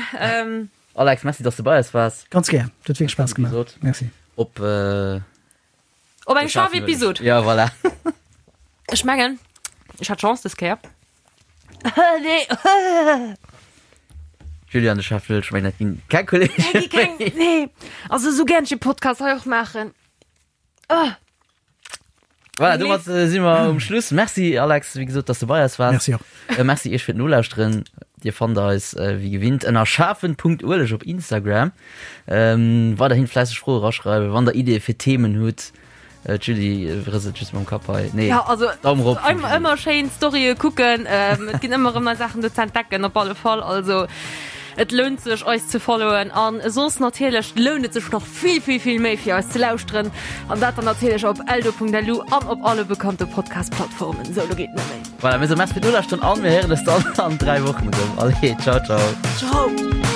Alex, merci dass de bei eis waars.
Ganz gär, et huet wierklech Spaass gemaach.
Episod.
Merci.
Op äh,
Op eng scharf Episod.
Ja, voilà.
Ech mengen, ech hat Chance des Kéier. Nee.
Julian, de Chef wëll, ech mengen, dat ginn keng Kollegen.
Dat gi keng, nee. Also esou gär ech de Podcast hei och maachen. Oh.
Voilà, domat äh, si mer um Schluss. Merci Alex, wéi gesot, dass du bei eis waars.
Merci och.
Äh, merci iech fir d'Nolauschteren. Dir fannt eis äh, wéi gewinnt ënner schafen.ueleg op Instagram. Ähm, weiderhin fläisseg Froe raschreiwen, wann der Ideeë fir Themen hutt. Äh, d'Julie äh, rëselt just mam Kapp hei. Nee,
Ja, also
Daumen rop.
ëmmer, ëmmer schéin Storye kucken. Ähm, et ginn ëmmer erëm nei Saachen do ze entdecken, op alle Fall. Also et lount sech eis ze followen an soss natierlech lount et sech nach vill vill vill méi fir eis ze lauschteren an dat dann natierlech op eldo.lu an op alle bekannte Podcast-Plattformen. Sou, lo geet net méi.
Voilà, mir soe Merci fir d'Nolauschteren an mir héieren eis dann an 3 Wochen erëm. Allez, ciao, ciao.
Ciao.